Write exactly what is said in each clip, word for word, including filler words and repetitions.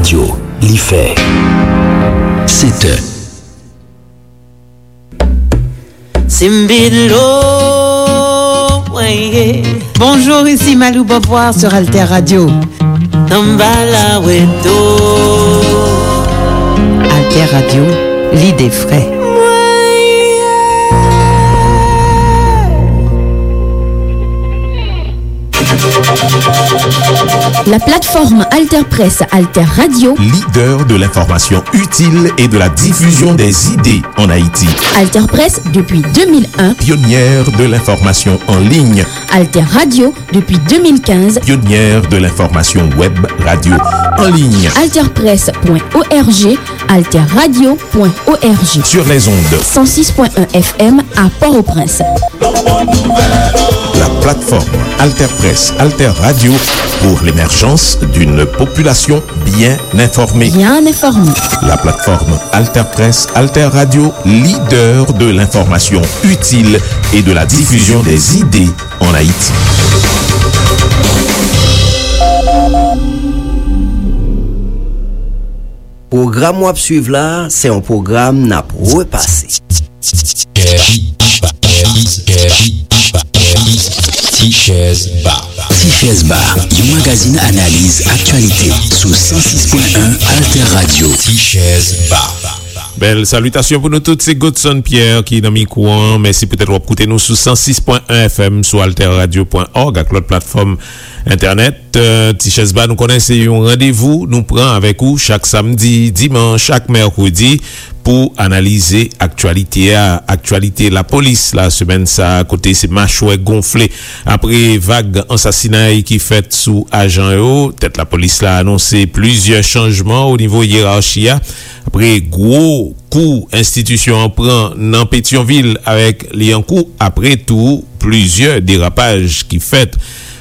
Yo, li fè sèt è. Simbilo, weye. Bonjour, ici Malou Beauvoir sur Alter Radio. Tambala weto. Alter Radio, l'idée vraie. La plateforme Alter Presse Alter Radio. Leader de l'information utile et de la diffusion des idées en Haïti. Alter Presse depuis deux mille un. Pionnière de l'information en ligne. Alter Radio depuis deux mille quinze. Pionnière de l'information web radio en ligne. Alter Presse point O R G, Alter Radio point O R G. Sur les ondes. Cent six point un F M à Port-au-Prince. La plateforme Alter Presse, Alter Radio pour l'émergence d'une population bien informée. Bien informée. La plateforme Alter Presse, Alter Radio, leader de l'information utile et de la diffusion des idées en Haïti. Pwogram w ap swiv la, se yon pwogram n ap repase. Ti Chèz Ba. Ti Chèz Ba, yon magazin analiz aktyalite sou san sis pwen en Alter Radio. Ti Chèz Ba. Bèl salitasyon pou nou tout, se Godson Pierre ki nan mikwo an. Mèsi poutèt w ap koute nou sou san sis pwen en F M, sou alter radio pwen org ak lòt platfòm entènèt. Eh, Ti Chèz Ba, nou konnen se yon randevou nou pran avèk ou chak samdi, dimanch ak mèkredi pou analize aktyalite a, aktyalite lapolis la semèn sa a, kote se machwè gonfle apre vag ansasinay ki fèt sou ajan yo. Tèt lapolis la anonse plizyè chanjman o nivo yerachi a, apre gwo kou enstitisyon an pran nan Petyonvil avèk Lyankou, apre tou plizyè derapaj ki fèt.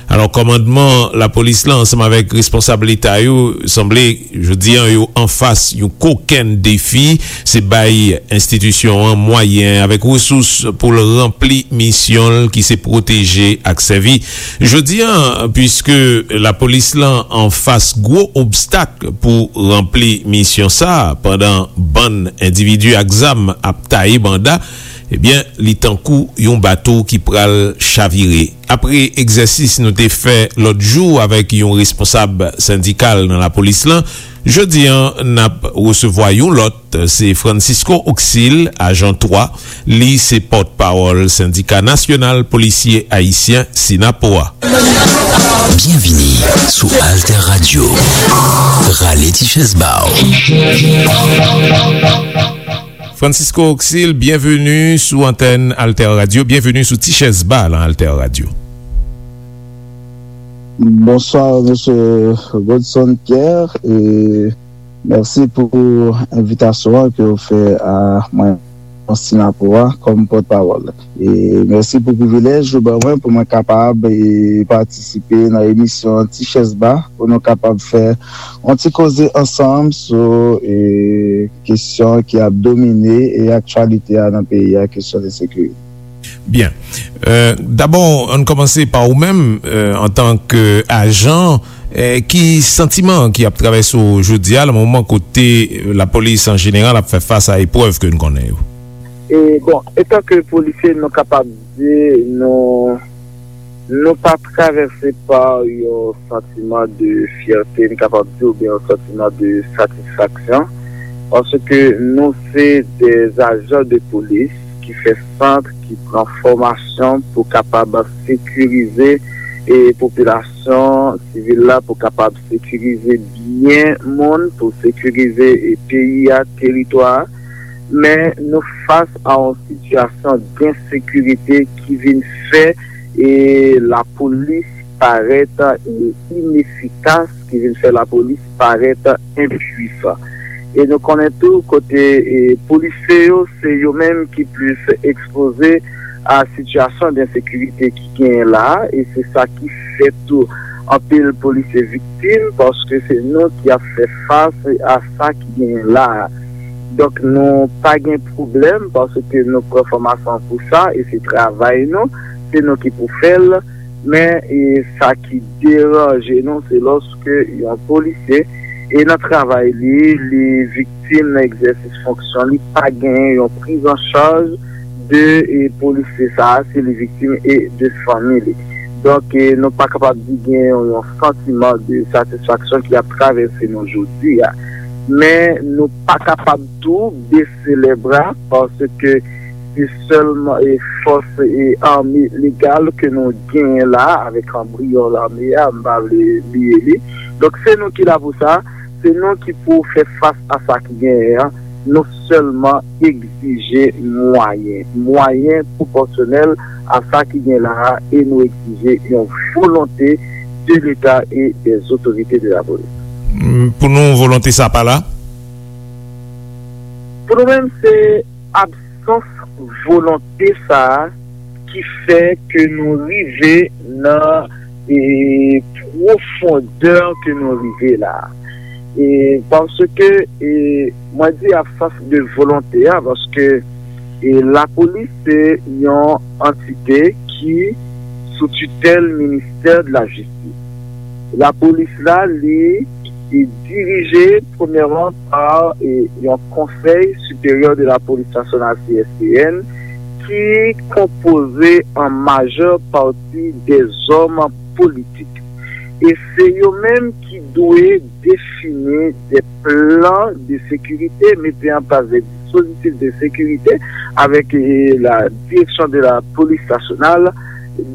Alò, kòmandman lapolis la ansanm avèk responsab leta yo sanble jodi a yo anfas yon kokenn defi, se bay enstitisyon an mwayen avèk resous pou l ranpli misyon l ki se pwoteje ak sèvi. Jodi a, piske lapolis la anfas gwo obstak pou ranpli misyon sa a, pandan bann endividi ak zam ap taye banda, ebyen, li tankou yon bato ki pral chavire. Apre egzèsis nou te fè lòt jou avèk yon responsab sendikal nan lapolis lan, jodi a n ap resevwa yon lòt, se Francisco Oxil, ajan twa, li se pòtpawòl Sendika Nasyonal Polisye Ayisyen, sinapo, a. Byenvini sou Alter Radio. Rale ti chèz ba w. Francisco Oxil, byenveni sou antèn Alter Radio, byenveni sou Ti Chèz Ba lan Alter Radio. Bonswa, mesye Godson Pierre, e mèsi pou envitasyon an ke w fè a mwen, sinapo a, kòm pòtpawòl. E mèsi pou privilèj ou ban mwen pou mwen kapab, e, patisipe nan emisyon Ti Chèz Ba, pou nou kapab fè yon ti koze ansanm sou, e, kesyon ki ap domine, e, aktyalite a nan peyi a, kesyon de sekirite. Byen. Euh, dabò, ann kòmanse pa ou menm, euh, antanke ajan, euh, ki santiman ki ap travèse w jodi a, nan moman kote, euh, lapolis an jeneral ap fè fas a eprèv ke n konnen yo? E, bon, antanke polisye, nou kapab di, nou, nou pa travèse pa yon santiman de fyète, n kapab di, oubyen yon santiman de satisfaksyon, paske nou se de ajan de polis ki fè sant, ki pran fòmasyon pou kapab sekirize, e, popilasyon sivil la, pou kapab sekirize byen moun, pou sekirize, e, peyi a, teritwa a. Men nou fas a yon sitiyasyon d ensekirite ki vin fè, e, lapolis parèt, e, inefikas, ki vin fè lapolis parèt enpwisan. E nou konnen tou kote, e, polisye yo, se yo menm ki plis ekspoze a sitiyasyon d ensekirite ki genyen la a, e se sa ki fè tou anpil polisye viktim, paske se nou ki ap fè fas a sa ki genyen la a. Donk, nou pa gen pwoblèm, paske nou pran fòmasyon pou sa, e se travay nou, se nou ki pou fè l. Men, e, sa ki deranje nou, se lòske yon polisye E nan travay li, li viktim nan egzèsis fonksyon li, pa genyen yon priz an chaj de e, polisye sa a, si li viktim e de fanmi li. Donk, e, nou pa kapab di gen yon, yon santiman de satisfaksyon ki ap travèse nou jodi a. Men nou pa kapab tou bese lè bra, paske se sèlman e fòs e ame legal ke nou genyen la, avèk anbriyon lame a, m pa vle bliye li. Donk, se nou ki la pou sa, se nou ki pou fè fas a sa ki genyen an. Nou sèlman egzije mwayen, mwayen pwopòsyonèl a sa ki gen la a, e nou egzije yon volonte de Leta e des autorités de la police. Pou nou, volonte sa pa la? Pou nou menm, se absans volonte sa a ki fè ke nou rive nan e, pwofondè ke nou rive la. E, paske e, mwen di absans de volonte a, paske e, lapolis se yon antite ki sou titèl ministè de la jistis. Lapolis la, li e dirije premyèman pa e, yon konsèy siperyè de la polis nasyonal, C S P N, ki konpoze an majè pati de zòm politik. E se yo menm ki dwe defini de plan de sekirite, mete an plas de dispozitif de sekirite avèk e, la direksyon de la polis nasyonal.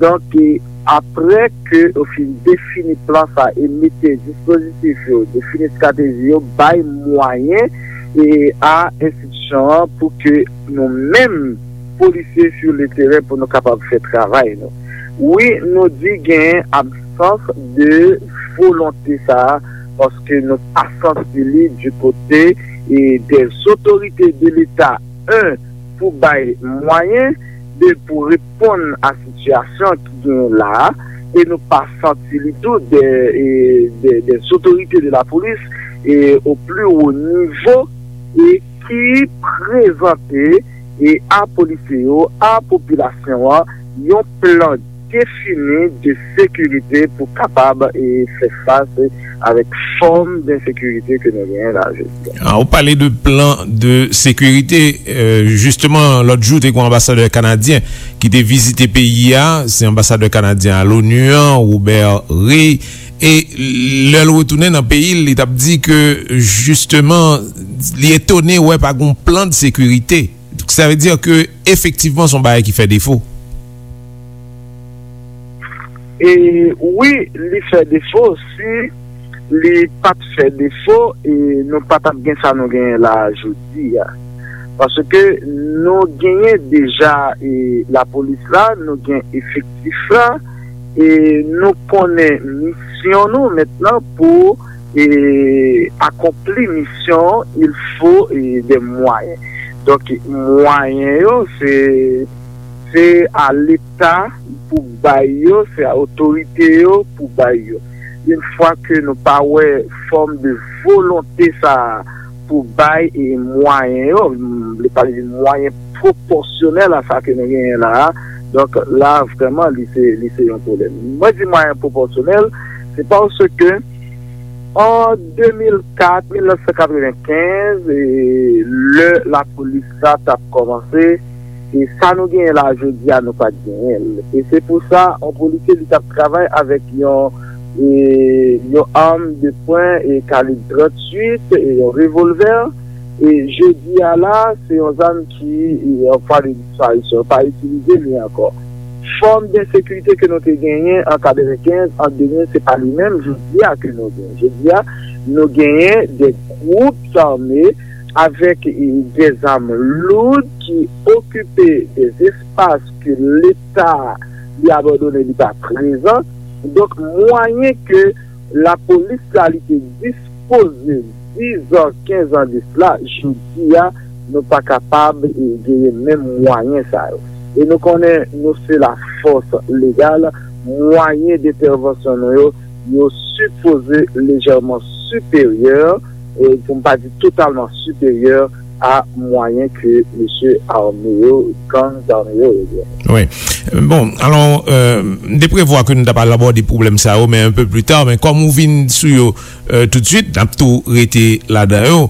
Donk, e, apre ke yo fin defini plan sa e mete dispozitif yo, defini estrateji yo, bay mwayen e a enstitisyon an pou ke nou menm polisye sou le teren pou nou kapab fè travay nou. Wi, nou di gen absans de volonte sa a, paske nou pa santi li di kote e de otorite de Leta, en, pou bay mwayen, de, pou reponn a sitiyasyon ki genyen la a, e nou pa santi li tou de, e, de, de otorite de la polis e o pli wo nivo e ki prezante e a polisye yo, a popilasyon an, yon plan defini de sekirite pou kapab e fè fas avèk fòm de sekirite ke nou genyen la jodi a. Ah, ou pale de plan de sekirite. Euh, jisteman, lòt jou, te gen yon anbasadè kanadyen ki te vizite peyi a. Se anbasadè kanadyen a l'ONU an, Robert Ray. E lè l retounen nan peyi l, li t ap di ke, jisteman, li etone wè pa gen plan de sekirite. Sa vle di ke, efektivman, se yon bagay ki fè defo. E wi, li fè defo. Si li pa t fè defo, e nou pa t ap gen sa nou genyen la a jodi a. Paske nou genyen deja, e, lapolis la, nou gen efektif la, e nou konnen misyon nou mentnan pou, e, akonpli misyon, il faut, e, des moyens. Donk, mwayen yo, se, se a Leta pou bay yo, se a otorite yo pou bay yo. Yon fwa ke nou pa wè fòm de volonte sa a pou bay e mwayen yo, m vle pale de mwayen pwopòsyonèl a sa ke nou genyen la a. Donk, la, vrèman, li se, li se yon pwoblèm. Mwen di mwayen pwopòsyonèl, se paske an de mil kat, mil nèf san katrevenkenz, e lè lapolis la t ap kòmanse, e sa nou genyen la jodi a, nou pa t genyen l. E se pou sa, yon polisye, li t ap travay avèk yon, e, yon arm de pwen e kalib tranntuit, e yon revolvè. E jodi a la, se yon zam ki, e, an vwa de disparisyon, pa itilize li ankò. Fòm de sekirite ke nou te genyen an katrevenkenz, an de mil, se pa li menm jodi a ke nou genyen. Jodi a, nou genyen de gwoup ame avèk, e, de zam loud ki okipe de espas ke Leta li abandone, li pa prezan. Donk, mwayen ke lapolis la li te dispoze diz an, kenz an de sila, jodi a, nou pa kapab, e, genyen menm mwayen sa yo. E nou konnen nou se lafòs legal, mwayen dentèvansyon nou yo, yo sipoze lejèman siperyè, e pou m pa di totalman siperyè, a mwayen ke mesye ame yo, gang zame yo, yo gen. Wi. Bon, alò, euh, m te prevwa ke nou ta pral abòde pwoblèm sa yo, men un peu plus tard, men kòm ou vin sou yo, euh, tout de suite, n ap tou rete ladan yo.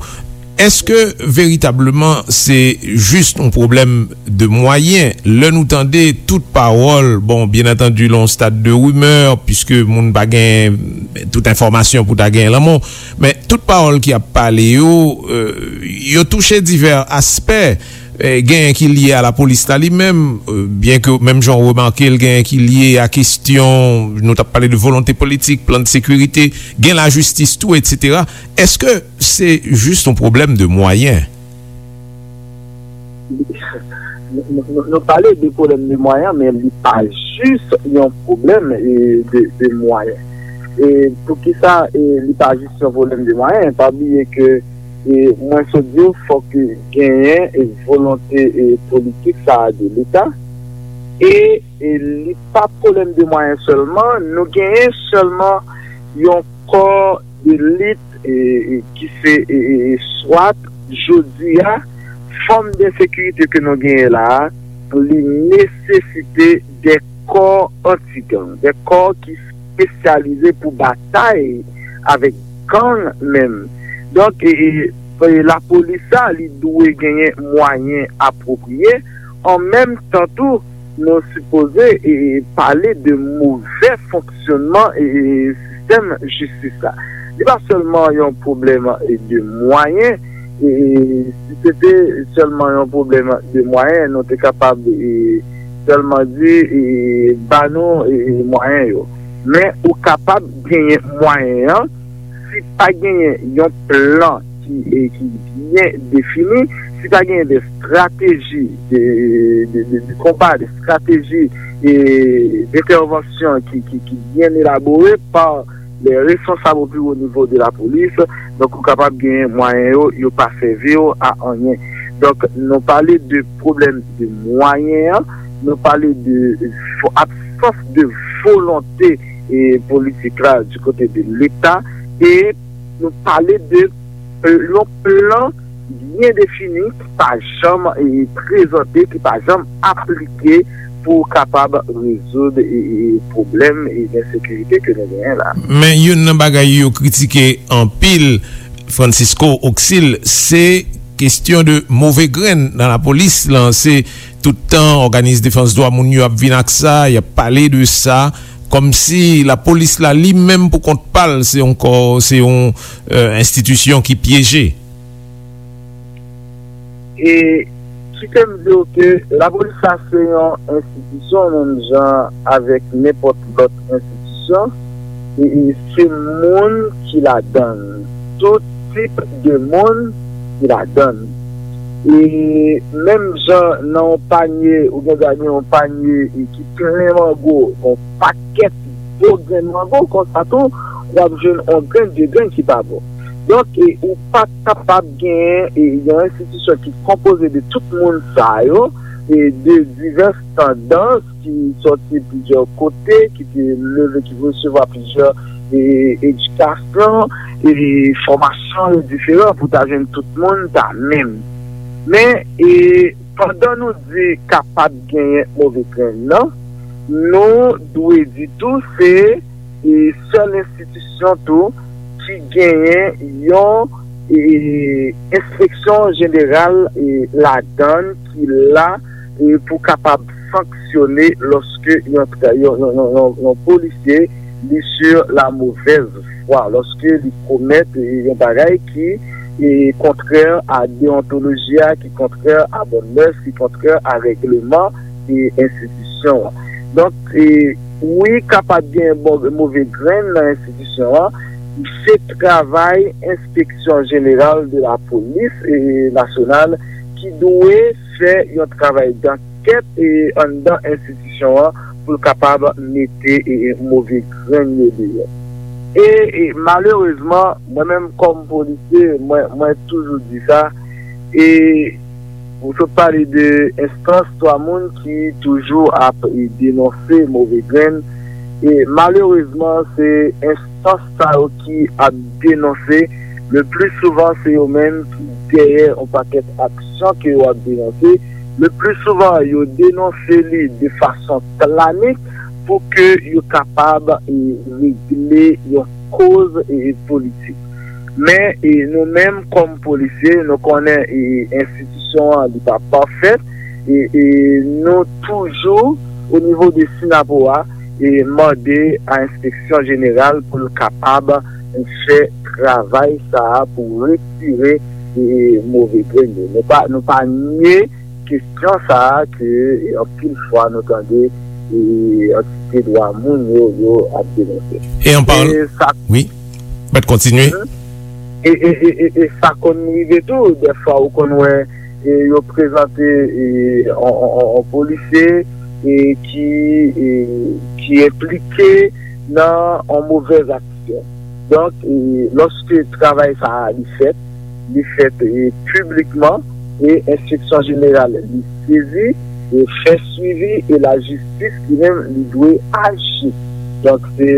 Èske veritableman se jis yon pwoblèm de mwayen? Lè nou tande tout pawòl, bon, byen antandi, lè yon stad de rimè, piske moun pa gen tout enfòmasyon pou ta gen lanmò, men tout pawòl ki ap pale yo, euh, yo touche divè aspè. Eh, genyen ki lye a lapolis la li menm, euh, byen ke menm jan w remake l, genyen ki lye a kesyon, nou t ap pale de volonte politik, plan de sekirite, gen lajistis tou, etsetera. Èske se jis yon pwoblèm de mwayen? Nou, nou, nou, nou pale de pwoblèm de mwayen, men li pa jis yon pwoblèm, e, de, de mwayen. E poukisa, e, li pa jis yon pwoblèm de mwayen? Pa bliye ke, e, mwen sot di w, fòk genyen, e, volonte, e, politik sa a de Leta. E, e li pa pwoblèm de mwayen sèlman, nou genyen sèlman yon kò de lit, e, e, ki se, e, e, e, swat, jodi a, fòm de sekirite ke nou genyen la a, li nesesite de kò anti-gang, de kò ki espesyalize pou batay avèk gang menm. Donk, e, e, e, lapolis la, li dwe genyen mwayen apwopriye. An menm tan tou, nou sipoze, e, e, pale de movè fonksyònman, e, e, sistèm jistis la. Li pa sèlman yon pwoblèm, e, de mwayen, e, e, si se te sèlman yon pwoblèm de mwayen, nou te kapab, e, sèlman di, e, ba nou, e, e, mwayen yo. Men ou kapab genyen mwayen an, si pa genyen yon plan ki, e, ki byen defini, si pa genyen de strateji de, de, de, de konba, de strateji, e, d'entèvansyon ki, ki, ki byen elabore pa lè responsab o pi wo nivo de lapolis, donk ou kapab genyen mwayen yo, yo pa sèvi yo a anyen. Donk, nou pale de pwoblèm de mwayen an, nou pale de vo-, absans de volonte, e, politik la du kote de Leta, e nou pale de, e, yon plan byen defini ki pa janm, e, prezante, ki pa janm aplike pou kapab rezoud, e, e, pwoblèm, e, ensekirite ke nou genyen la. Men youn nan bagay yo kritike anpil, Francisco Auxil, se kesyon de move grenn nan lapolis lan. Se tout tan òganis defans dwa moun yo ap vin ak sa, y ap pale de sa, kòmsi lapolis la li menm pou kont pa l se yon kò, se yon, euh, enstitisyon ki pyeje. E kite m di w ke lapolis la se yon enstitisyon menm jan avèk nenpòt lòt enstitisyon. E, e se moun ki ladan l. Tout tip de moun ki ladan l. E menm jan nan yon panye, ou gen dwa gen yon panye e ki plen mango, yon pakèt gwo grenn mango, konsa tou, w ap jwenn yon grenn, de grenn ki pa bon. Donk, e, ou pa kapab genyen, e, yon enstitisyon ki konpoze de tout moun sa yo, e, de divès tandans ki sòti plizyè kote, ki te leve, ki resevwa plizyè, e, edikasyon, e, fòmasyon diferan pou ta jwenn tout moun ta menm. Men, e, pandan nou di kapab genyen move grenn nan, nou dwe di tou se, e, sèl enstitisyon tou ki genyen yon, e, enspeksyon jeneral, e, ladan l ki la, e, pou kapab sanksyone lòske yon tra-, yon, yon, yon, yon, yon polisye li sur la mauvaise voie, lòske li komèt, e, yon bagay ki, e, kontrè a deontoloji a, ki kontrè a bòn mès, ki kontrè a règleman, e, enstitisyon an. Donk, e, wi, kapab gen bon, move grenn nan enstitisyon an. Se travay Enspeksyon Jeneral de la Polis, e, Nasyonal ki dwe fè yon travay dankèt, e, anndan enstitisyon an pou l kapab mete, e, move grenn yo deyò. E, e malerezman, mwen menm kòm polisye, mwen, mwen toujou di sa, e ou sot pale de enstans, twa moun ki toujou ap, e, denonse move grenn. E malerezman, se enstans sa yo ki ap denonse Le pli souvan, se yo menm ki dèyè yon pakèt aksyon ke yo ap denonse. Le pli souvan, yo denonse li de fason planik pou ke yo kapab e, regle yon koz e, politik. Men e, nou menm kòm polisye, nou konnen e, enstitisyon an li pa pafèt e, e nou toujou o nivo de Sinapowa e mande a enspeksyon jeneral pou l kapab fè travay sa a pou retire e, move grenn yo. Nou pa, nou pa nye kesyon sa a ke e, anpil fwa nou tande e, antite dwa moun yo, yo ap denonse. E an parl- E sa Wi. Mèt kontinye. E, e, e, e, e sa konn rive tou, dèfwa ou konn wè e, yo prezante e, on, on, on, on polisye e, ki, e, ki enplike nan on movèz aksyon. Donk, e, lòske travay sa a li fèt, li fèt e, piblikman e enspeksyon jeneral li sezi e fè swivi e lajistis li menm li dwe aji. Donk, se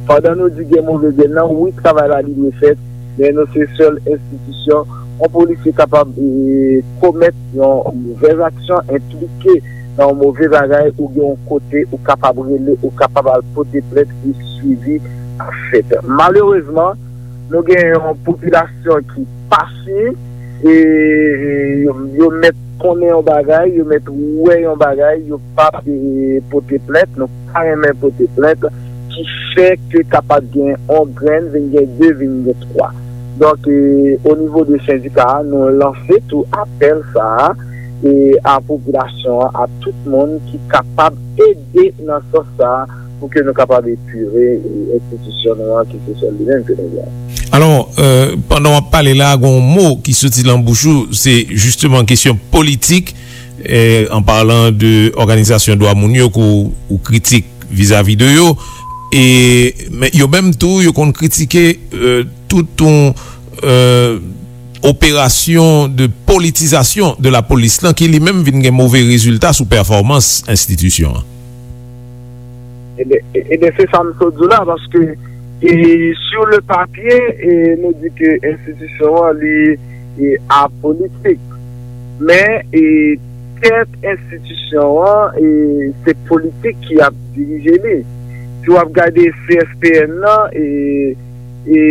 pandan nou di gen move grenn nan, wi, travay la li dwe fèt, men nou se sèl enstitisyon. Yon polisye kapab e, komèt yon movèz aksyon, enplike nan yon move bagay, ou gen yon kote ou kapab rele, ou kapab al pote plent e swivi ap fèt. Malerezman, nou gen yon popilasyon ki pa fin e yo, yo mèt konnen yon bagay, yo mèt wè yon bagay, yo p ap e, pote plent, nou pa renmen pote plent, ki fè ke kapab gen yon grenn, vin gen de, vin gen twa. Donk, e, o nivo de sendika a, nou lanse tou apèl sa a e a popilasyon an, a tout moun ki kapab ede nan sans sa a pou ke nou kapab epire e, enstitisyon nou an ki se sèl li menm ke nou gen. Alò, euh, pandan w ap pale la, gen yon mo ki soti nan bouch ou, se jisteman kesyon politik, euh, an palan de òganizasyon dwa moun yo ke w, ou kritik vizavi de yo. E, men yo menm tou, yo konn kritike euh, tout yon euh, operasyon de politizasyon de lapolis lan ki li menm vin gen move rezilta sou pèfòmans enstitisyon an. Ebyen, e- ebyen se sa m sot di w la, paske e, sur le papier, e, nou di ke enstitisyon an li e, apolitik. Men e, tèt enstitisyon an, e, se politik ki ap dirije li. Si w ap gade C S P N nan, e, e,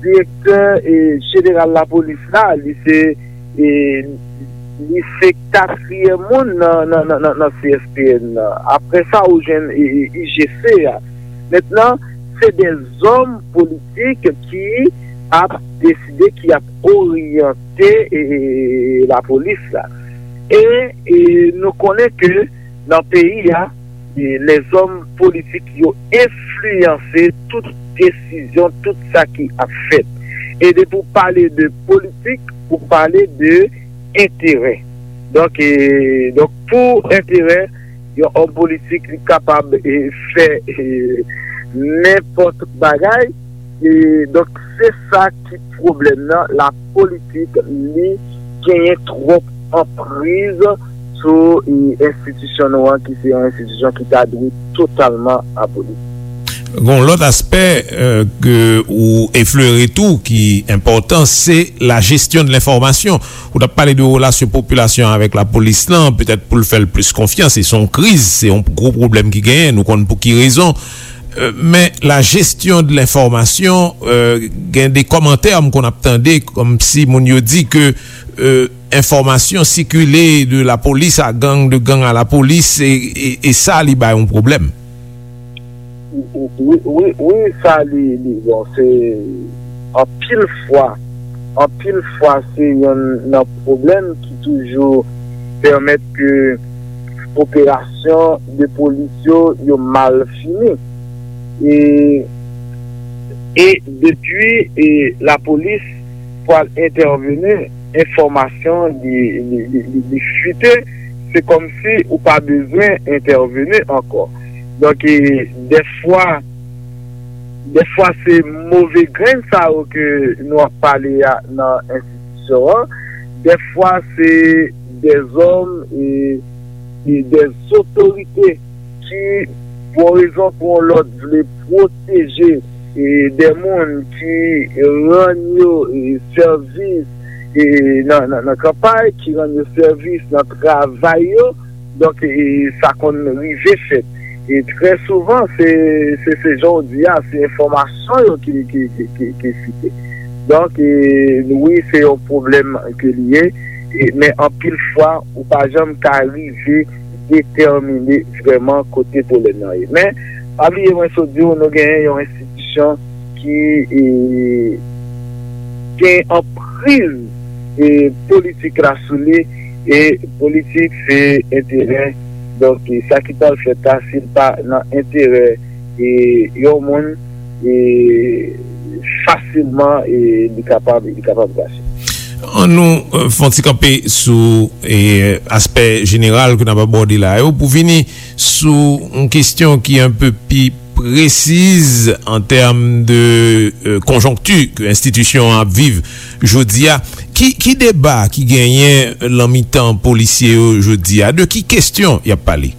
direktè e, jeneral lapolis la, li se e, li se katriyèm moun nan, nan, nan, nan, nan C S P N nan. Apre sa, ou jwenn e, e, I G C a. Mentnan, se de zòm politik ki ap deside, ki ap oryante e, e, lapolis la. E, e nou konnen ke nan peyi a, e, lèzòm politik yo enfliyanse tout desizyon, tout sa ki ap fèt. E depi w pale de politik, ou pale de enterè. Donk, e, donk pou enterè, yon òm politik li kapab e, fè e, nenpòt bagay. E, donk, se sa ki pwoblèm nan. Lapolitik, li genyen twòp anpriz sou e, enstitisyon nou an, ki se yon enstitisyon ki ta dwe totalman aboli. Gon lòt aspè euh, ke ou eflere tou ki enpòtan, se la gestion de l'information. Ou t ap pale de relasyon popilasyon avèk lapolis lan, petèt pou l fè l plis konfyans, e se yon kriz, se yon gwo pwoblèm ki genyen, nou konn pou ki rezon. Euh, men la gestion de l'information, euh, gen de kòmantè m konn ap tande, kòmsi moun yo di ke euh, enfòmasyon sikile de lapolis a gang, de gang a lapolis, e, e, e sa li bay yon pwoblèm. Wi, wi, wi, sa li, li, bon, se anpil fwa, anpil fwa se yonn nan pwoblèm ki toujou pèmèt ke operasyon de polis yo, yo mal fini. E, e depi e, lapolis pral entèveni, enfòmasyon li, li, li, li, li fite, se kòmsi ou pa bezwen entèveni ankò. Donk, e, dèfwa, dèfwa se move grenn sa yo ke nou ap pale a nan enstitisyon an, dèfwa se dèzòm e, e dèzotorite ki, pou yon rezon pou yon lòt, vle pwoteje e, de moun ki rann yo, e, sèvis, e, nan, nan, nan kanpay, ki rann yo sèvis nan travay yo. Donk, e, sa konn rive fèt. E trè souvan, se, se, se jan w di a, se enfòmasyon yo ki, ki, ki, ki, ki site. Donk, e, wi, se yon pwoblèm ke li ye, e, men anpil fwa, ou pa janm ka rive detèmine vrèman kote pwoblèm nan ye. Men, pa bliye, mwen sot di w, nou genyen yon enstitisyon ki, e, gen anpriz, e, politik la sou li, e politik se enterè. Donk, e, sa ki pral fèt la, si l pa nan enterè, e, yon moun, e, fasilman, e, li kapab, li kapab krache. An nou, e, fè yon ti kanpe sou, e, aspè jeneral ke n ap abòde la yo, pou vini sou yon kesyon ki enpe pi presiz an tèm de, e, konjonkti ke enstitisyon an ap viv jodi a. Ki, ki deba ki genyen lan mitan polisye yo jodi a? De ki kesyon y ap pale?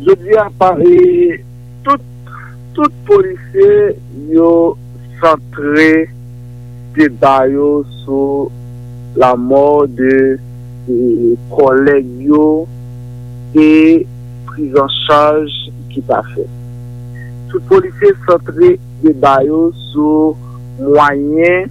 Jodi a, pa, e, tout, tout polisye yo santre deba yo sou lanmò de, e, kòlèg yo e priz an chaj ki pa fèt. Tout polisye santre deba yo sou mwayen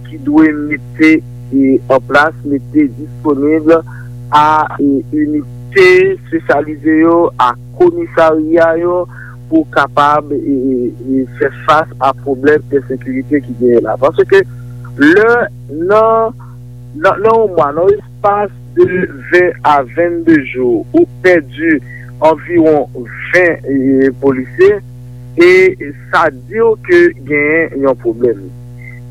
ki dwe mete, e, an plas, mete disponib a, e, inite espesyalize yo, a komisarya yo, pou kapab, e, e, e, fè fas a pwoblèm ensekirite ki genyen la. Paske lè nan, nan, nan yon mwa, nan espas de ven a vennde jou, ou pèdi anviwon ven, e, polisye, e sa di w ke genyen yon pwoblèm.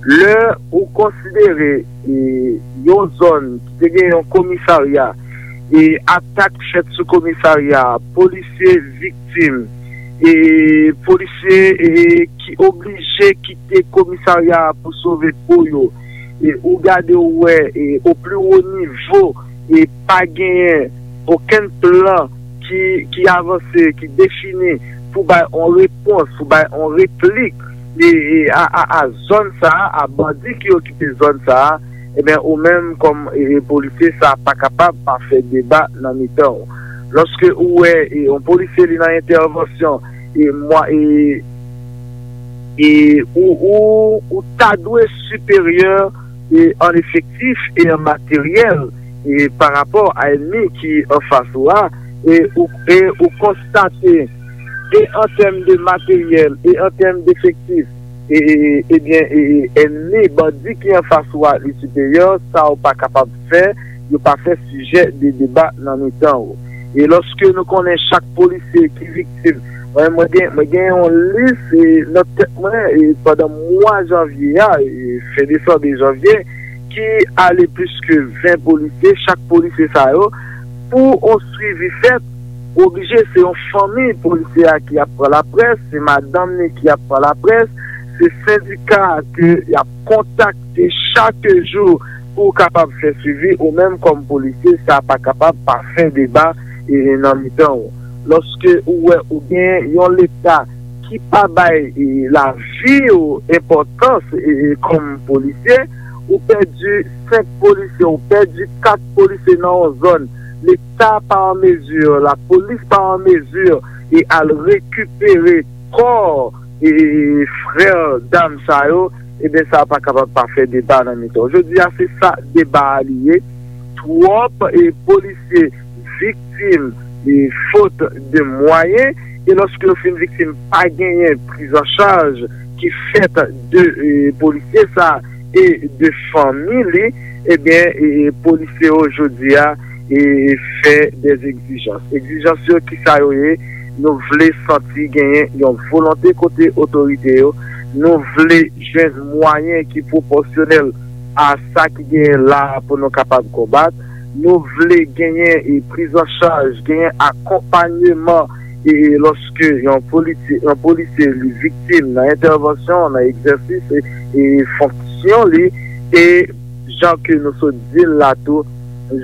Lè ou konsidere, e, yon zòn ki te gen yon komisarya, e atak fèt sou komisarya, polisye viktim, e polisye, e, ki oblije kite komisarya a pou sove po yo, e ou gade ou wè, e, o pli wo nivo, e pa genyen okenn plan ki, ki avanse, ki defini pou bay on repons, pou bay on replik, e, e, a, a, a zòn sa a, a bandi ki okipe zòn sa a, ebyen, ou menm kòm, e, e, polisye, sa pa kapab pa fè deba nan mitan w. Lòske ou wè, e, yon polisye li nan entèvansyon, e, mwa, e, e ou, ou, ou ta dwe siperyè, e, an efektif e an materyèl, e, pa rapò a ènmi ki anfas ou a, e ou, e ou konstate, e an tèm de materyèl, e an tèm de efektif, e, e, e, ebyen, e, e, ènmi, bandi ki anfas ou a, li siperyè, sa ou pa kapab fè, yo pa fè sijè de deba nan mitan ou. E lòske nou konnen chak polisye ki viktim, mwen, mwen gen, mwen gen yon lis, e, nan tèt mwen, e, pandan mwa janvye a, e, fen desanm e janvye, ki ale plis ke ven polisye, chak polisye sa yo, pou on swivi fèt, oblije se yon fanmi polisye a ki ap pran laprès, se madanm li ki ap pran laprès, se sendika ke y ap kontakte chak jou pou w kapab fè swivi, ou menm kòm polisye, sa pa kapab pa fè deba, e, nan mitan w. Lòske ou wè ou gen yon Leta ki pa bay, e, lavi w enpòtans, e, e, kòm polisye, ou pèdi senk polisye, ou pèdi kat polisye nan yon zòn, Leta pa an mezi, lapolis pa an mezi, e, al rekipere kò, e, frè dam sa yo, ebyen, sa pa kapab pa fè deba nan mitan. Jodi a, se sa deba a li ye. Twòp, e, polisye viktim, e, fot de mwayen, e lòske yo fin viktim, pa genyen priz an chaj ki fèt de, e, polisye sa e de fanmi li, ebyen, e, e, polisye yo jodi a, e, fè de egzijans. Egzijans yo, ki sa yo ye? Nou vle santi genyen yon volonte kote otorite yo. Nou vle jwenn mwayen ki pwopòsyonèl a sa ki genyen la a pou nou kapab konbat. Nou vle genyen, e, priz an chaj, genyen akonpanyeman, e, lòske yon politi-, yon polisye li viktim nan entèvansyon, nan egzèsis, e, e fonksyon li, e jan ke nou sot di l la tou,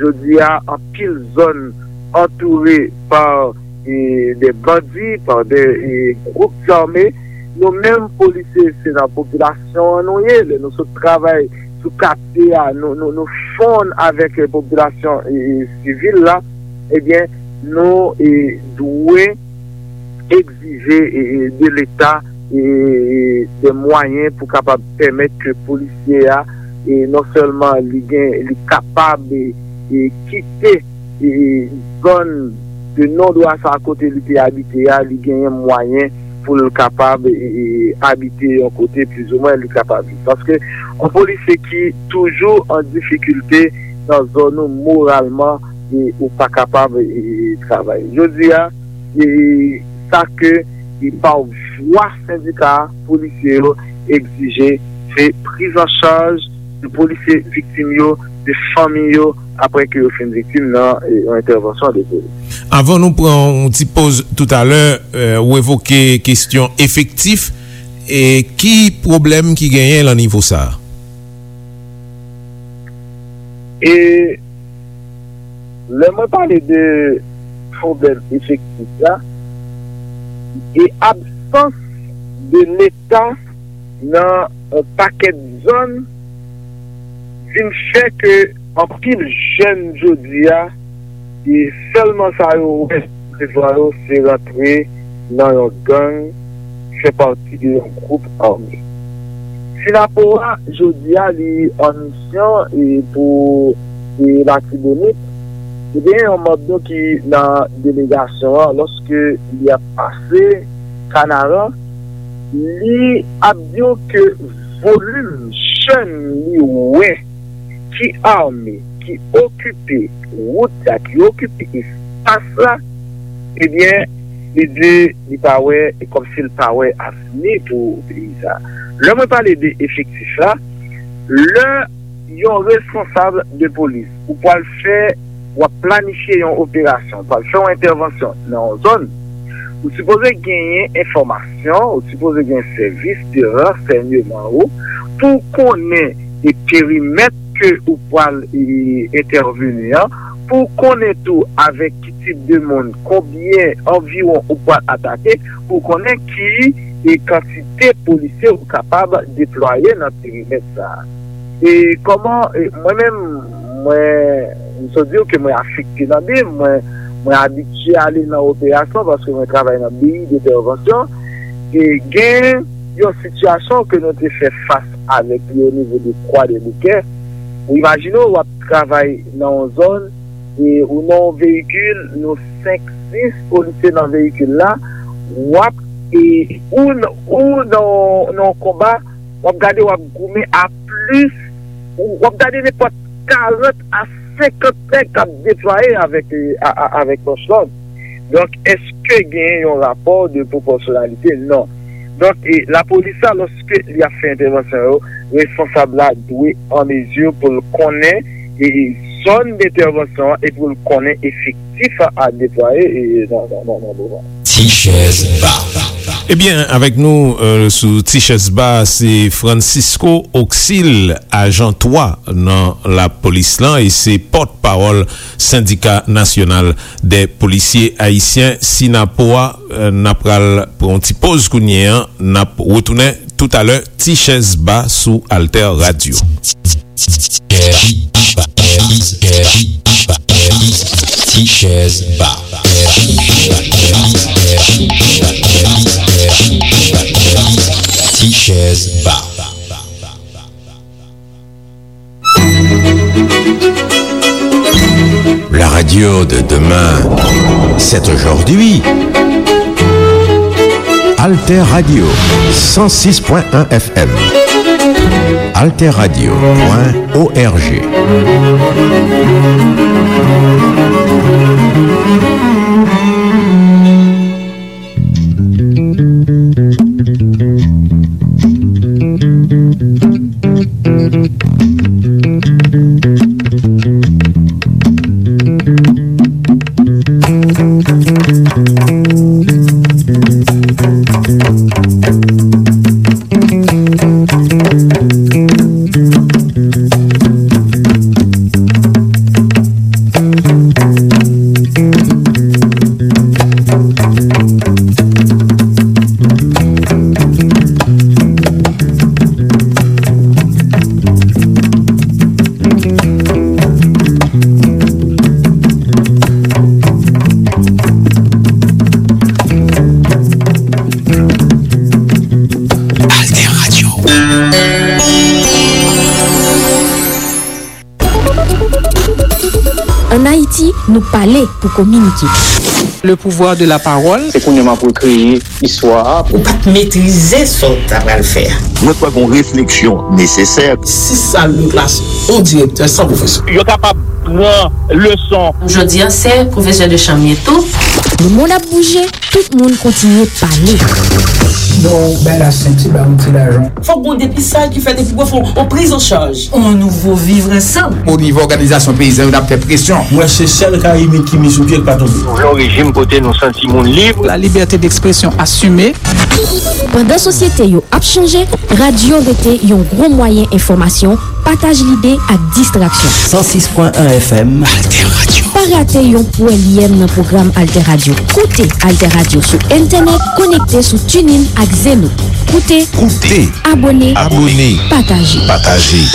jodi a, anpil zòn antoure pa e, de bandi, pa de, e, gwoup zame. Nou menm polisye, se nan popilasyon an nou ye. Lè nou sot travay sou katye a, nou, nou, nou fonn avèk, e, popilasyon, e, e, sivil la. Ebyen, nou, e, dwe egzije, e, e, de Leta, e, e, de mwayen pou kapab pèmèt ke polisye a, e, non sèlman li gen, li kapab, e, e, kite, e, zòn de non dwa sa kote li te abite a, li genyen mwayen pou l kapab, e, e, abite yon kote plizoumwen li kapab viv. Paske yon polisye ki toujou an difikilte nan zòn ou moralman, e, ou pa kapab, e, e, travay. Jodi a, e, sa ke, e, pa vwa sendika polisye yo egzije, se priz an chaj de polisye viktim yo, de fanmi yo, apre ke yo fin viktim nan, e, yon entèvansyon de polis. Avan nou pran yon ti poz toutalè, e, ou evoke kesyon efektif, e ki pwoblèm ki genyen lan nivo sa a? E lè mwen pale de pwoblèm efektif la, e absans de Leta nan yon pakèt zòn vin fè ke anpil jèn jodi a, e sèlman sa yo wè devan yo se rantre nan yon gang, fè pati de yon gwoup ame. Sinapo a, jodi a, li an misyon, e, pou, e, Latibonit. E gen yon manm nou ki nan delegasyon an, lòske li ap pase Kanaran, li ap di w ke volim jèn li wè ki ame, ki okipe wout la, ki okipe espas la, ebyen, li di li pa wè, e kòmsi l pa wè avni pou peyi sa. Lè mwen pale de efektif la, lè yon responsab de polis, ou pral fè, w ap planifye yon operasyon, w ap fè yon entèvansyon nan yon zòn, ou sipoze genyen enfòmasyon, ou sipoze gen sèvis de ransèyman ou pou w konnen e perimèt ke ou pral, e, entèveni an, pou w konnen tou avèk ki tip de moun, konbyen anviwon ou pral atake, pou w konnen ki, e, kantite polisye ou kapab deplwaye nan perimèt sa a. E kòman, e, mwen menm, mwen, m sot di w ke mwen afekte nan bim, mwen, mwen abitye ale nan operasyon paske mwen travay nan B I d'entèvansyon. E gen yon sitiyasyon ke nou te fè fas avèk li o nivo de Kwadèboukè. Ou imajine w, w ap travay nan yon zòn, e ou nan yon veyikil, nou senk, sis polisye nan veyikil la, w ap, e, ou, ou nan, nan yon konba, w ap gade, w ap goumen a plis, ou, w ap gade nenpòt karant a senkant nèg k ap deplwaye avèk, e, a, a, avèk mòch lòd. Donk, èske genyen yon rapò de pwopòsyonalite? Non. Donk, e, lapolis la, lòske li ap fè entèvansyon yo, responsab la dwe an mezi pou l konnen, e, zòn entèvansyon an e pou l konnen efektif a, a deplwaye, e, nan, nan, nan, nan moman. Ti chèz ba. Ebyen, avèk nou, e, sou Ti chèz ba, se Francisco Oxil, ajan twa nan lapolis lan, e se pòtpawòl Sendika Nasyonal dè Polisye Ayisyen, Sinapo a. E, n ap pral pran yon ti poz kounye a, n ap retounen toutalè. Ti chèz ba sou Alter Radio. Ti chèz ba. Ti chèz ba. La radio de demain, c'est aujourd'hui. Alter Radio, cent six point un F M. Alter Radio point O R G. Pou pale, pou kominike. Le pouvoir de la parole. Se kounye a m ap rekreye istwa a. Ou pa t metrize sa w ta pral fè a. Mwen kwè gen yon refleksyon nesesè. Sis sal de klas, yon direktè san pwofesè. Yo kapab pran leson. Jodi a, se pwofesè de chanm ye tou. Le monde ap bouje, tout moun kontinye pale. Bon, bay la senti, ba yon ti lajan. Fòk gon depistaj ki fèt epi pou fè yon priz an chaj. On nouvo vivre ensemble. O nivo òganizasyon peyizan yo, n ap fè presyon. Mwen se sèl Karibyen ki met sou pye k pa tonbe. Nou vle yon rejim kote nou santi moun lib. La liberté d'expression assumée. Pandan sosyete yo ap chanje, radyo rete yon gwo mwayen enfòmasyon, pataj lide ak distraksyon. San sis pwen en F M. Alter Radio. Pa rate yon pwèlyèm nan pwogram Alter Radio. Koute Alter Radio sou entènèt, konekte sou TuneIn ak Zeno. Koute. Koute. Abòne. Abòne. Pataje. Pataje.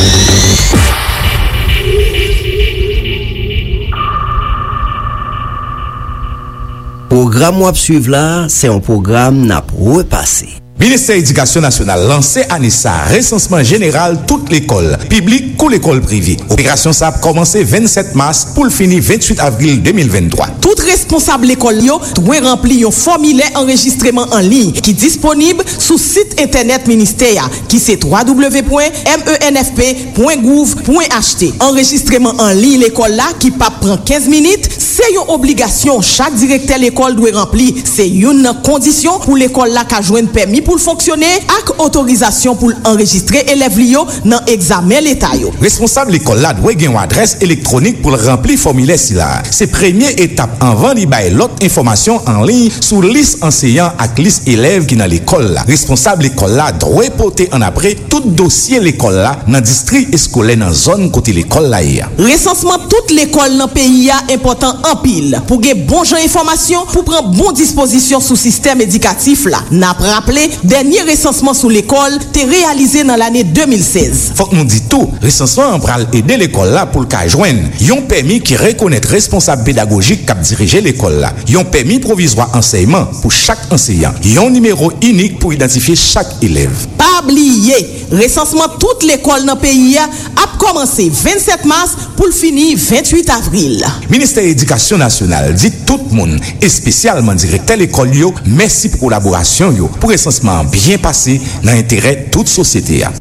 Pwogram w ap swiv la a, se yon pwogram n ap repase. Ministè Edikasyon Nasyonal lanse ane sa a resansman jeneral tout lekòl, piblik kou lekòl prive. Operasyon sa a ap kòmanse vennsèt mas pou l fini vennuit avril de mil venntwa. Tout responsab lekòl yo dwe ranpli yon fòmilè anrejistreman an liy ki disponib sou sit entènèt ministè a, ki se twa w w w pwen m e n f p pwen gouv pwen h t. Anrejistreman an liy lekòl la, ki p ap pran kenz minit, se yon obligasyon chak direktè lekòl dwe ranpli. Se youn nan kondisyon pou lekòl la ka jwenn pèmi pou l fonksyone ak otorizasyon pou l anrejistre elèv li yo nan egzamen leta yo. Responsab lekòl la dwe gen yon adrès elektwonik pou l ranpli fòmilè sila a. Se premye etap anvan li bay lòt enfòmasyon an liy sou lis anseyan ak lis elèv ki nan lekòl la. Responsab lekòl la dwe pote annapre tout dosye lekòl la nan distri eskolè nan zòn kote lekòl la ye a. Resansman tout lekòl nan peyi a enpòtan anpil pou gen bon jan enfòmasyon pou pran bon dispozisyon sou sistèm edikatif la. N ap raple, dènye resansman sou lekòl te reyalize nan lane de mil sèz. Fòk nou di tou, resansman an pral ede lekòl la pou l ka jwenn yon pèmi ki rekonèt responsab pedagojik k ap dirije lekòl la, yon pèmi pwovizwa ansèyman pou chak anseyan, yon nimewo inik pou idantifye chak elèv. Pa bliye, resansman tout lekòl nan peyi a ap kòmanse vennsèt mas pou l fini vennuit avril. Ministè Edikasyon Nasyonal di tout moun, espesyalman direktè lekòl yo, mèsi pou kolaborasyon yo pou resansman an byen pase nan enterè tout sosyete a.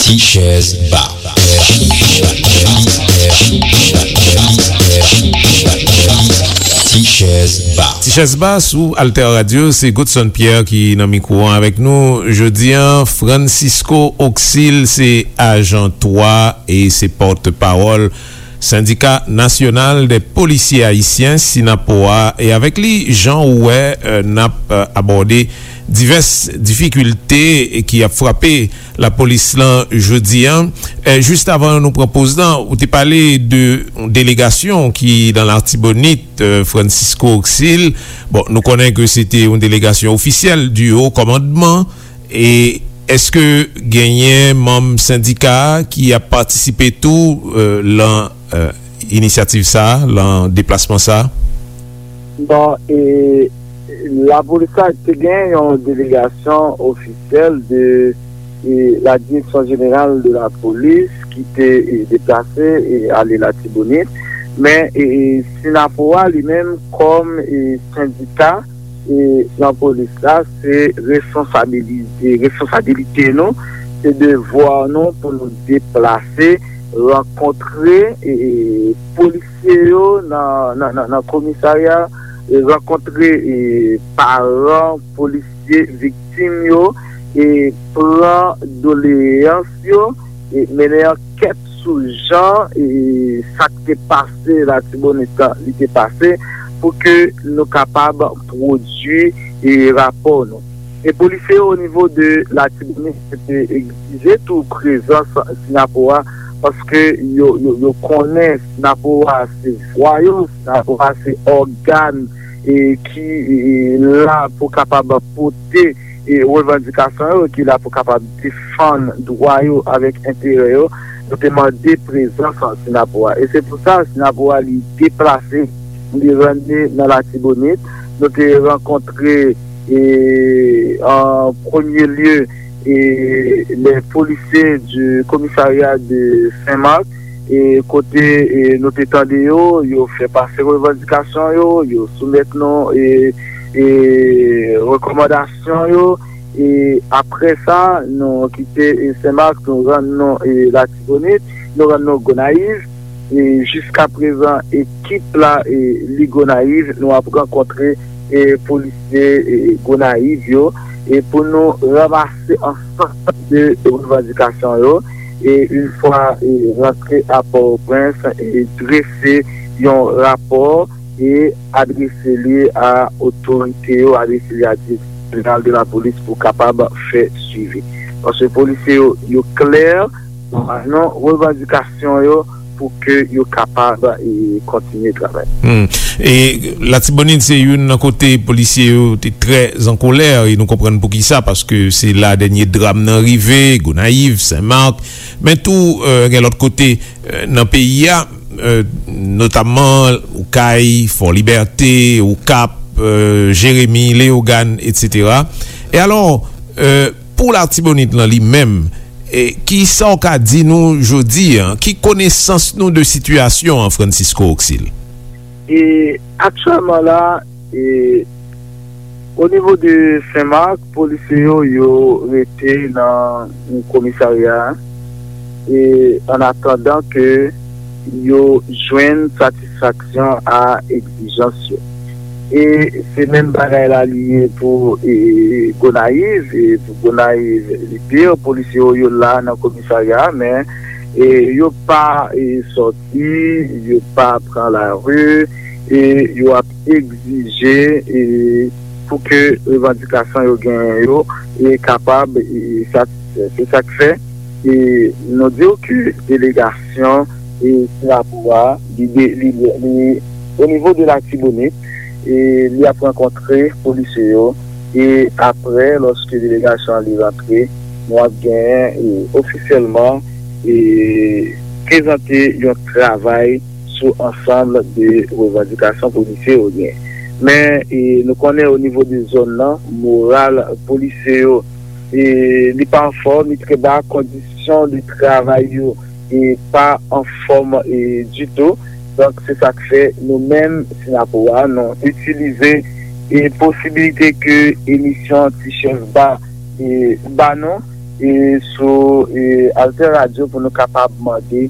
Ti chèz ba. Ti chèz ba. Ti chèz ba sou Alter Radio, se Godson Pierre ki nan mikwo an avèk nou jodi a. Francisco Auxil se ajan twa e se pòtpawòl Sendika Nasyonal dè Polisye Ayisyen, Synapoha, e avèk li, jan ou wè, euh, n ap, euh, abòde divès difikilte ki ap frape lapolis lan jodi a. Eh, jis avan nou pran poz lan, ou te pale de yon delegasyon ki nan Latibonit, eh, Francisco Auxil. Bon, nou konnen ke se te yon delegasyon ofisyèl di wo kòmandman. E èske genyen manm sendika a ki ap patisipe tou, eh, lan, eh, inisyativ sa a, lan deplasman sa a? Bon, e, lapolis la te gen yon delegasyon ofisyèl de, e, la Direction Générale de la Police ki te, e, deplase, e, ale Latibonit. Men, e, e, Synapoha li menm kòm, e, sendika, e, nan polis la, se responsabilite, responsabilite nou, se devwa nou pou nou deplase, rankontre, e, e, polis yo nan, nan, nan, nan komisarya, e, rankontre, e, paran polisye viktim yo, e, pran doleyans yo, e, mennen ankèt sou jan, e, sa k te pase Latibonit lan, li te pase, pou ke nou kapab pwodui, e, rapò nou. E polisye yo o nivo de Latibonit te egzije tou prezans Synapoha, paske yo, yo, yo konnen Synapoha se vwa yo, Synapoha se ògàn, e, ki, e, la pou kapab pote, e, revandikasyon yo, ki la pou kapab defann dwa yo avèk enterè yo. Nou te mande prezans Synapoha. E se pou sa, Synapoha li deplase, li rann li nan Latibonit. Nou te rankontre, e, an premye lye, e, les policiers du commissariat de Saint-Marc, e kote, e, nou te tande yo, yo fè pase revandikasyon yo, yo soumèt nou, e, e, rekòmandasyon yo, e apre sa, nou kite, e, Senmak, nou rann nou, e, Latibonit, nou rann nou Gonayiv, e jiska prezan, ekip la, e, li Gonayiv, nou ap rankontre, e, polisye, e, Gonayiv yo, e pou nou ranmase ansanm de revandikasyon yo, e yon fwa, e, rantre a Pòtoprens, e drese yon rapò, e adrese li a otorite yo, adrese li a direksyon jeneral de la polis pou kapab fè swivi. Paske polisye yo, yo klè nan revandikasyon yo pou ke yo kapab, e, kontinye travay. Hmm. E Latibonit se youn nan kote polisye yo te trè an kolè, e nou konprann poukisa, paske se la dènye dram nan rive, Gonayiv, Senmak, men tou, e, gen lòt kote, e, nan peyi a, e, notamman Okay, Fò Libète, Okap, e, Jeremi, Leyogàn, etsetera. E alò, e, pou Latibonit lan li menm, e, ki sa w ka di nou jodi a? Ki konesans nou de sitiyasyon an, Francisco Oxil? E aktyèlman la, e, o nivo de Senmak, polisye yo, yo rete nan komisarya, e, an atandan ke yo jwenn satisfaksyon a egzijans yo. E se menm bagay la li ye pou, e, Gonayiv, e pou Gonayiv, li pi, polisye yo, yo la nan komisarya, men, e, yo pa, e, sòti, yo pa pran lari, e yo ap egzije, e, pou ke revandikasyon yo genyen yo, e kapab, e, satisfè. Se sa k fè, e, nou di w ke delegasyon, e, Singapou a, li, de- li, li, o nivo de Latibonit, e, li ap rankontre polisye yo, e apre, lòske delegasyon an li rantre, nou ap genyen, e, ofisyèlman, e, prezante yon travay sou ansanm de revandikasyon polisye yo gen. Men, e, nou konnen o nivo de zòn nan, moral polisye yo, e, li pa anfòm, li trè ba, kondisyon de travay yo, e, pa anfòm, e, ditou. Donk, se sa k fè nou menm, Sinapo a, nou itilize, e, posibilite ke emisyon Ti Chèf Ba, e, ba nou, e, sou, e, Alter Radio pou nou kapab mande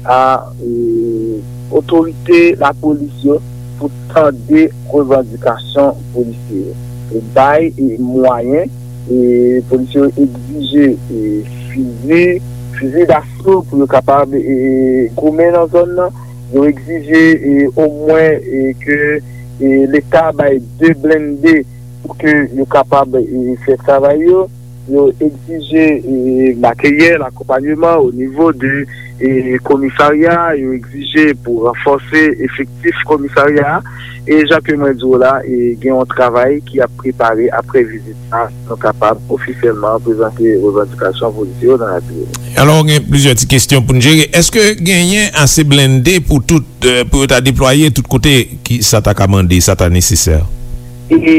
a, e, otorite lapolis yo pou tande revandikasyon polisye yo. E bay, e, mwayen, e, polisye yo egzije, e, fizi, fizi daso pou yo kapab, e, goumen nan zòn nan. Yo egzije, e, omwen, e, ke, e, Leta bay de blende pou ke yo kapab, e, fè travay yo. Yo egzije, e, materyèl, akonpanyeman o nivo de, e, komisarya, yo egzije pou ranfòse efektif komisarya a. E jan ke mwen di w la, e, gen yon travay ki ap prepare apre vizit sa, nou kapab ofisyèlman prezante revandikasyon polisye yo nan Latibonit. Alò, gen plizyè ti kesyon pou n jere. Èske genyen ase blende pou tout, e, pou yo ta deplwaye tout kote ki sa ta ka mande, sa ta nesesè? E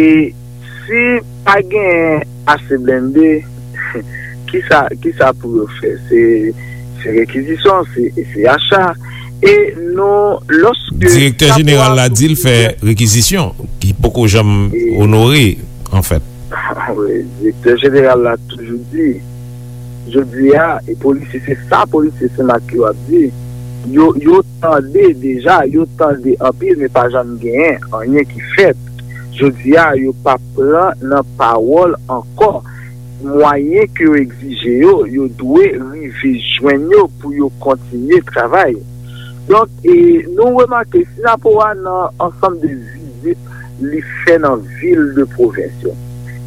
si pa gen ase blende, kisa, kisa pou yo fè? Se, se rekizisyon, se, se acha. E nou, lòske Direktè jeneral la di l fè rekizisyon, ki poko janm onore, anfèt. Wi, direktè jeneral la toujou di, jodi a, e polisye, se sa polisye Senmak yo ap di. Yo, yo tande deja, yo tande anpil, men pa janm genyen anyen ki fèt. Jodi a, yo pa pran nan pawòl ankò. Mwayen ke yo egzije yo, yo dwe rive jwenn yo pou yo kontinye travay. Donk, e, nou remake, Sinapo a nan ansanm de vizit li fè nan vil de pwovens yo.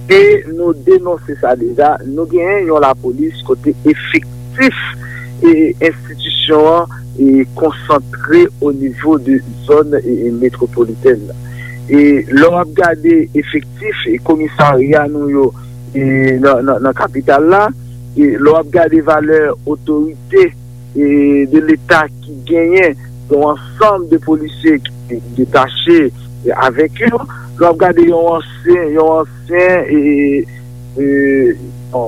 E nou denonse sa deja, nou genyen yon lapolis kote efektif e enstitisyon an e konsantre o nivo de zòn e, e metwopolitèn nan. E lè w ap gade efektif e komisarya nou yo e nan, nan, nan kapital la, e lè w ap gade valè otorite e de Leta ki genyen yon ansanm de polisye ki detache avèk yo. Lè w ap gade yon ansyen, yon ansyen e, e,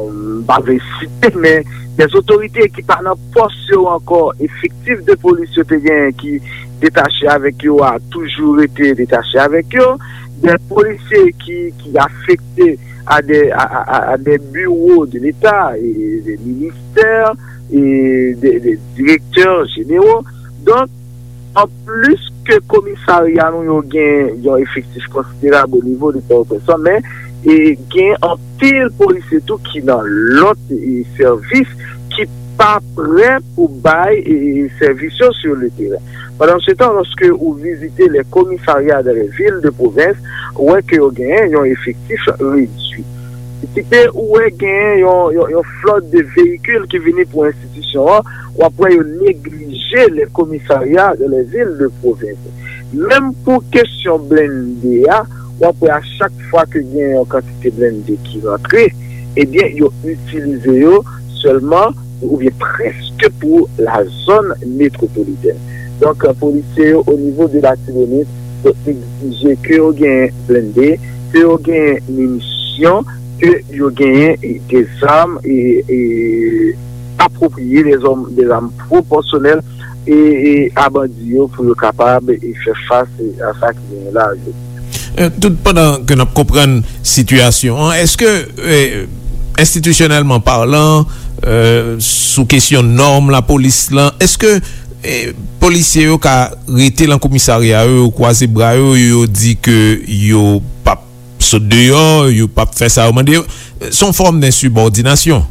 m pa vle site, men dè otorite ki pa nan pòs yo ankò, efektif de polis yo te genyen ki detache avèk yo a toujou rete detache avèk yo, dè polisye ki, ki afekte a dè, a, a, a, a dè biwo de Leta, e, de ministè, e de, de direktè jenero. Donk, anplis ke komisarya nou yo gen yon efektif konsiderab o nivo de Pòtoprens lan, men e gen anpil polisye tou ki nan lòt e, sèvis ki pa prè pou bay e, sèvis yo sur le terrain. Pandansetan, lòske ou vizite les commissariats dans les villes de province, ou wè ke yo genyen yon efektif redui. Kite ou wè genyen yon, yon, yon flòt de veyikil ki vini pou enstitisyon an, w ap wè yo neglije les commissariats dans les villes de province. Menm pou kesyon blende a, w ap wè a chak fwa ke gen yon kantite blende ki rantre, ebyen, yo itilize yo sèlman oubyen prèske pou la zòn metwopolitèn. Donk, polisye yo o nivo de Latibonit, yo egzije ke yo genyen blende, ke yo genyen minisyon, ke yo genyen e, de zam e, e apwopriye, de zam, de zam pwopòsyonèl e, e a bandi yo pou yo kapab e fè fas e a sa ki genyen la jodi. Euh, tout pandan ke n ap konprann sitiyasyon an, èske euh, enstitisyonèlman palan, euh, sou kesyon nòm lapolis lan, èske euh, polisye yo ka rete nan komisarya yo, yo kwaze bra yo, yo di ke yo p ap sot deyò, yo p ap fè sa yo mande yo? Se yon fòm densibòdinasyon.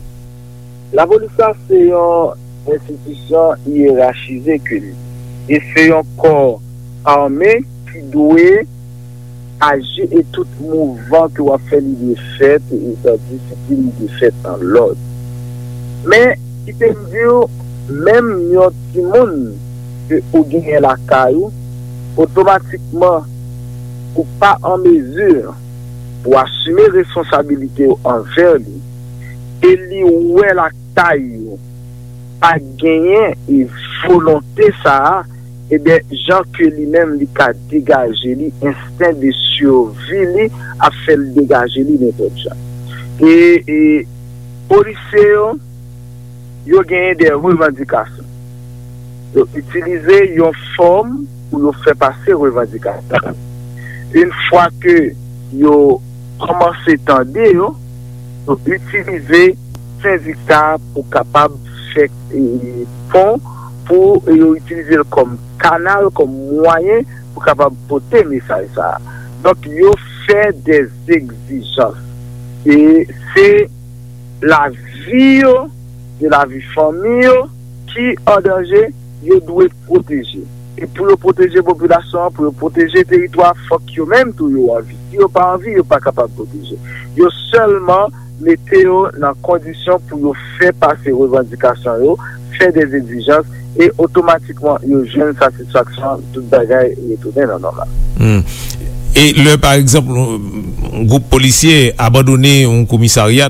Lapolis la se yon enstitisyon yerachize ke li. E se yon kò ame ki dwe aji e tout mouvman ke w ap fè li dwe fèt, e sa disiplin li dwe fèt an lòd. Men, kite m di w, menm yon timoun ke ou genyen lakay ou, otomatikman ou pa an mezi pou asime responsabilite w anvè li, e li wè lakay ou pa genyen e volonte sa a, ebyen, jan ke li menm li ka degaje li, ensten de sivi li ap fè l degaje li nenpòt jan. E, e polisye yo, yo genyen de revandikasyon. Yo itilize yon fòm pou yo fè pase revandikasyon. Yon fwa ke yo kòmanse tande yo, yo itilize sendika pou kapab fè e, pon, pou yo itilize l kòm kanal, kòm mwayen pou kapab pote mesaj sa a. Donk, yo fè de egzijans. E se lavi yo, de lavi fanmi yo ki an danje, yo dwe pwoteje. E pou yo pwoteje popilasyon an, pou yo pwoteje teritwa, fòk yo menm tou yo anvi. Si yo pa anvi, yo pa kapab pwoteje. Yo sèlman mete yo nan kondisyon pou yo fè pase revandikasyon yo, fè de egzijans, e otomatikman yo jwenn satisfaksyon, tout bagay retounen nan nòmal. Hmm. E lè, pa egzanp, yon gwoup polisye abandone yon komisarya,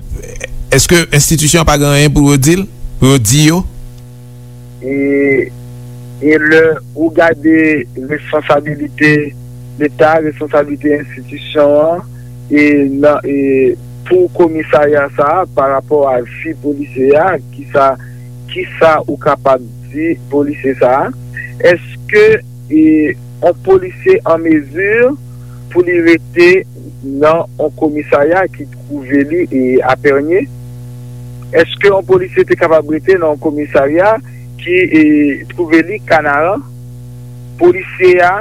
èske enstitisyon an pa gen anyen pou yo di l, pou yo di yo? E, e lè ou gade responsabilite Leta, responsabilite enstitisyon an, e nan, e pou komisarya sa a, pa rapò a vi polisye a, kisa, kisa ou kapab di polisye sa a? Èske e, yon polisye an mezi pou li rete nan yon komisarya ki twouve li e, a Pènye? Èske yon polisye te kapab rete nan yon komisarya ki e, twouve li Kanaran? Polisye a,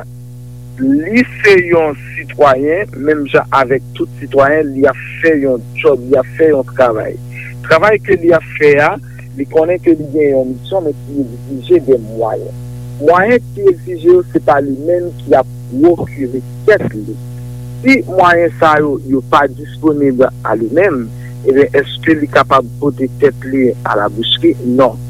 li se yon sitwayen, menm jan avèk tout sitwayen, li ap fè yon djòb, li ap fè yon travay. Travay ke li ap fè a, li konnen ke li gen yon misyon, men ki egzije de mwayen. Mwayen ki egzije yo, se pa li menm ki ap pwokire tèt li. Si mwayen sa yo, yo pa disponib a li menm, ebyen, èske li kapab pote tèt li a la boucherie? Non.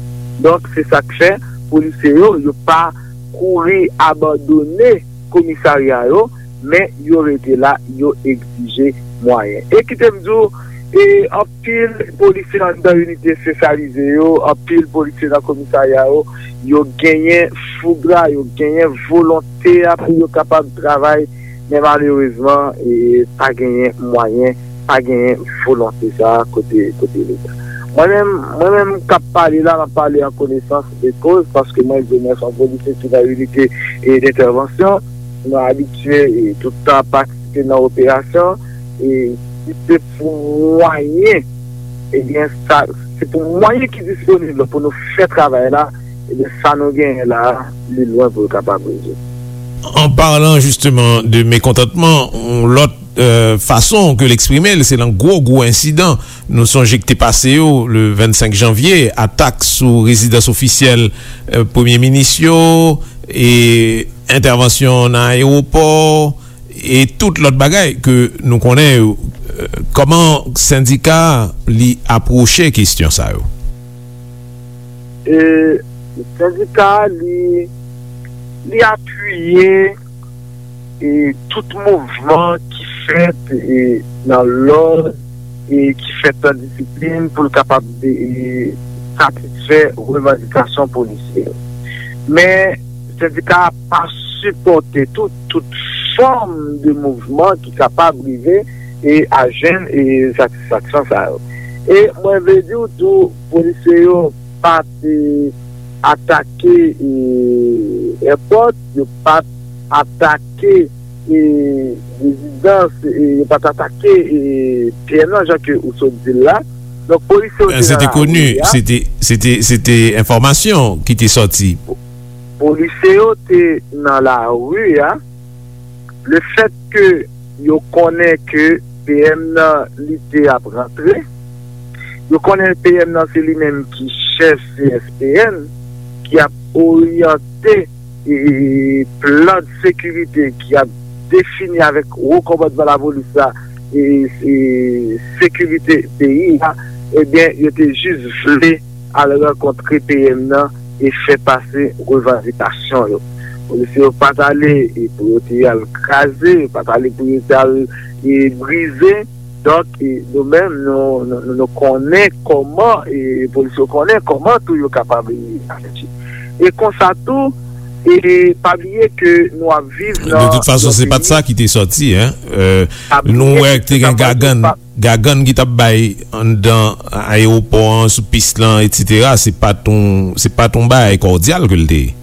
Donk, se sa k fè polisye yo, yo pa kouri abandone komisarya yo, men yo rete la, yo egzije mwayen. E kite m di w, e anpil polisye anndan inite espesyalize yo, anpil polisye nan komisarya yo, yo genyen foug la, yo genyen volonte a pou yo kapab travay, men malerezman, e pa genyen mwayen pa genyen volonte sa a kote, kote Leta. Mwen menm, mwen menm k ap pale la, m ap pale an konesans de koz, paske mwen di mwen se yon polisye ki nan inite, e, dentèvansyon. Nou abitye, e, tout tan patisipe nan operasyon, e si se pou mwayen, ebyen, sa, se pou mwayen ki disponib pou nou fè travay la, ebyen, sa nou genyen la, li lwen pou l kapab rezoud. En parlant justement de mécontentement, yon lòt, euh, façon que l'exprimer, c'est nan gwo, gwo ensidan. Nou sonje ki te pase yo, le vennsenk janvye, atak sou rezidans ofisyèl, euh, premye minis yo, e entèvansyon nan ayewopò, e tout lòt bagay ke nou konnen yo. Euh, kòman sendika a, li apwoche kesyon sa yo? E sendika a, li, li apiye, e tout mouvman ki fèt, e nan lòd, e ki fèt nan disiplin pou l kapab, e, satisfè revandikasyon polisye yo. Men, sendika a pa sipòte tout, tout fòm de mouvman ki kapab rive, e, a jwenn, e, satisfaksyon sa yo. E mwen vle di w tou, polisye yo pa t, e, atake, e, èpòt, yo pa t atake, e, rezidans, e, yo pa t atake, e, P M nan, jan ke ou sot di l la. Donk, polisye yo te nan lari a. Se te koni, se te, se te, se te enfòmasyon ki te sòti. Polisye yo te nan lari a. Le fèt ke yo konnen ke P M nan, li te ap rantre, yo konnen P M nan se li menm ki chèf C S P N, ki ap oryante, e, plan de sekirite, ki ap defini avèk wo kòmandman lapolis la, e, e sekirite peyi a, ebyen, yo te jis vle al rankontre P M nan e fè pase revandikasyon yo. Polisye yo pa t ale, e, pou yo te al kraze, yo pa t ale pou yo te al, e, brize. Donk, e, nou menm, nou, nou, nou, nou konnen kòman, e, polisye yo konnen kòman tou yo kapab, e, aji. E konsa tou, e, pa bliye ke nou ap viv nan yon peyi. De tout fason, se pa t sa ki te sòti, en. Euh, nou wè te gen gagann, gagann ki t ap bay anndan ayewopò an, sou pis lan, etsetera, se pa t yon, se pa t yon bagay kòdyal ke l te ye.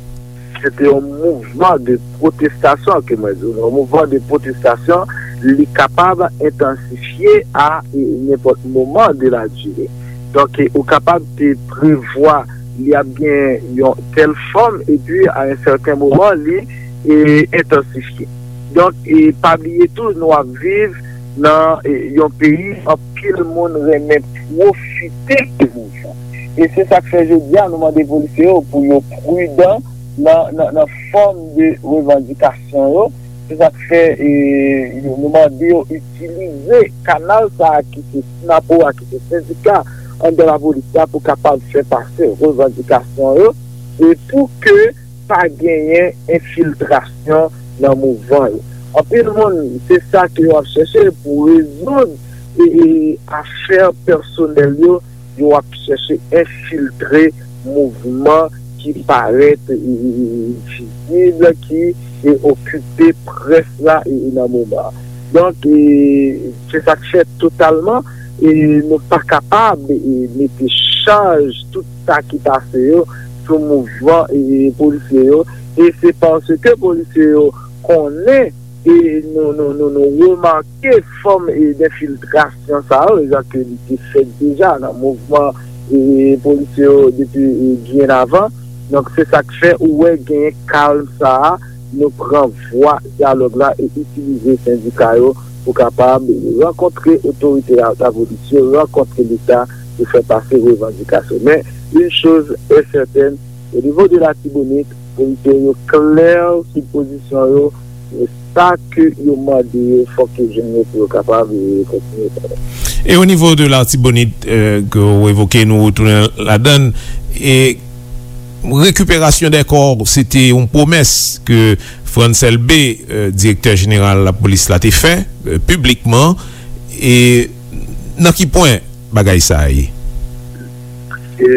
Se te yon mouvman de pwotestasyon ke mwen di w. Yon mouvman de pwotestasyon, li kapab entansifye a, e, nenpòt moman de la dire. Donk, e, ou kapab te prevwa li ap gen yon tèl fòm, epi a yon sèten moman, li, e, entansifye. Donk, e, pa bliye tou, nou ap viv nan, e, yon peyi anpil moun renmen pwofite de mouvman. E se sa k fè jodi a, nou mande polisye yo pou yo pridan nan, nan, nan fòm de revandikasyon yo. Se sa k fè, e, nou mande yo itilize kanal sa a ki se SNAPO a, ki se sendika anndan lapolis la pou kapab fè pase revandikasyon yo. E pou ke pa genyen enfiltrasyon nan mouvman yo. Anpil moun, se sa ke yo ap chèche pou rezoud e, e afè pèsonèl yo, yo ap chèche enfiltre mouvman ki parèt, e, e, e, vizib, ki, e, okipe près la, e, e, nan moman an. Donk, e, se sa k fè totalman, e, nou pa kapab, e, mete chaj tout sa ki pase yo sou mouvman, e, polisye yo. E se paske polisye yo konnen, e nou, nou, nou, nou remake fòm, e, denfiltrasyon sa yo, jan ke li te fèt deja nan mouvman, e, polisye yo depi, e, byen avan. Donk, se sa k fè ou wè genyen kalm sa a, nou pran vwa dyalòg la e itilize sendika yo pou kapab rankontre otorite lapolis yo, rankontre Leta pou fè pase revandikasyon. Men, une chose est certaine, au niveau de Latibonit, polisye yo klè sou pozisyon yo, e sa ke yo mande yo, fòk yo jwenn yo pou yo kapab, e, kontinye travay. E o nivo de Latibonit, euh, ke w evoke, nou retounen ladann, e rekiperasyon dè kò, se te yon pwomès ke Frantz Elbé, euh, direktè jeneral lapolis la, te fè, euh, piblikman. E nan ki pwen bagay sa a ye? E,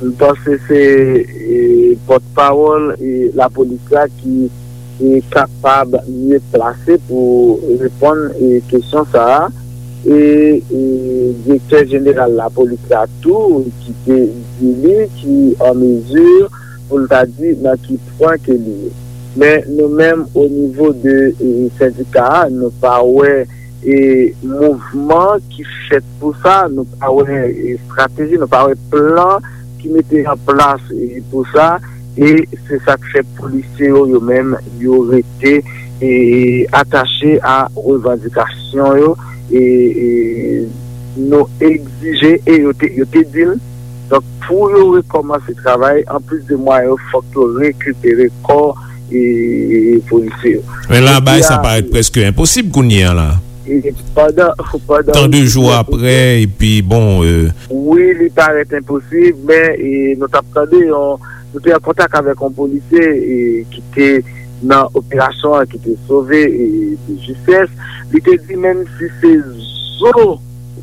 m panse se, e, pòtpawòl, e, lapolis la ki, e, kapab mye plase pou reponn, e, kesyon sa a. e, e direktè jeneral lapolis la tou, ki te di li ki an mezi pou l ta di nan ki pwen ke li ye. Men nou menm, o nivo de, e, sendika a, nou pa wè, e, mouvman ki fèt pou sa, nou pa wè, e, estrateji, nou pa wè plan ki mete an plas, e, pou sa, e se sa k fè polisye yo, yo menm, yo rete, e, atache a revandikasyon yo, e, e nou egzije, e yo te, yo te di l, donk, pou yo rekòmanse travay, anplis de mwayen yo, fòk yo rekipere kò, e, polisye yo. Men la, bagay sa parèt prèske enposib kounye a la. E pandan, pandan tan de jou apre, epi bon, e, wi, li parèt enposib, men, e, nou t ap tande yon, nou te an kontak avèk yon polisye, e, ki te nan operasyon an, ki te sove, e, de justès. Li te di, menm si se zo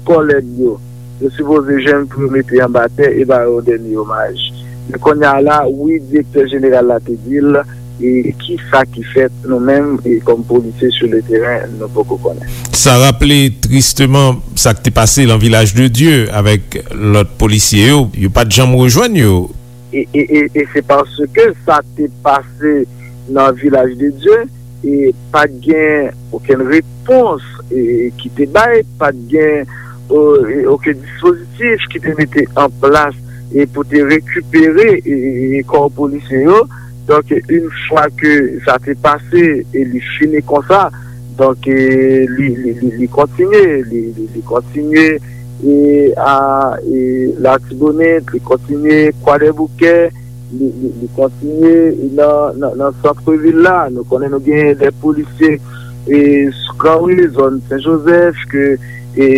kòlèg yo, yo sipoze jwenn pou yo mete anba tè e ba yo dènye omaj. Men kounye a la, wi, direktè jeneral la te di l, e kisa ki fèt, nou menm, e kòm polisye sou le teren, nou poko konnen. Sa raple tristeman sa k te pase nan Vilaj de Dye avèk lòt polisye yo, yo pa t janm rejwenn yo. E, e, e, e se paske sa te pase nan Vilaj de Dye, e pa t gen okenn repons, e, ki te bay, pa t gen, o, e, okenn dispozitif ki te mete an plas, e pou te rekipere, e, e, e kò polisye yo. Donk, yon fwa ke sa te pase e li fini konsa, donk, e, li, li, li, li kontinye, li, li, li kontinye, e, a, e, Latibonit, li kontinye Kwadèboukè, li, li, li kontinye nan, nan, nan santvil la. Nou konnen nou gen de polisye, e, sou Granri, zòn Sen Jozèf, ke, e,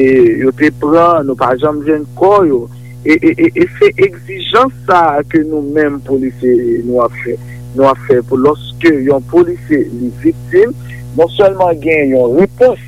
yo te pran, nou pa janm jwenn kò yo. E, e, e, e se egzijans sa a ke nou menm polisye nou ap fè. Nou ap fè pou lòske yon polisye li viktim, non sèlman gen yon repons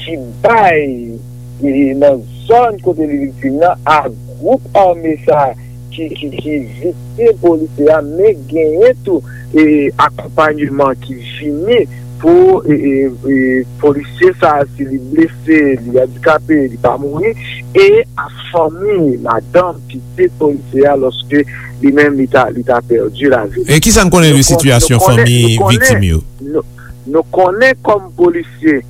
ki bay, e, nan zòn kote li viktim nan, a gwoup ame sa ki, ki, ki viktim polisye a, men genyen tou, e, akonpanyeman ki vini pou, e, e, e, polisye sa a, si li blese, li andikape, li pa mouri, e a fanmi, madanm, pitit polisye a, lòske li menm li ta, li ta pèdi lavi. E kisa n konnen de sitiyasyon fanmi viktim yo? Nou, nou konnen kòm polisye,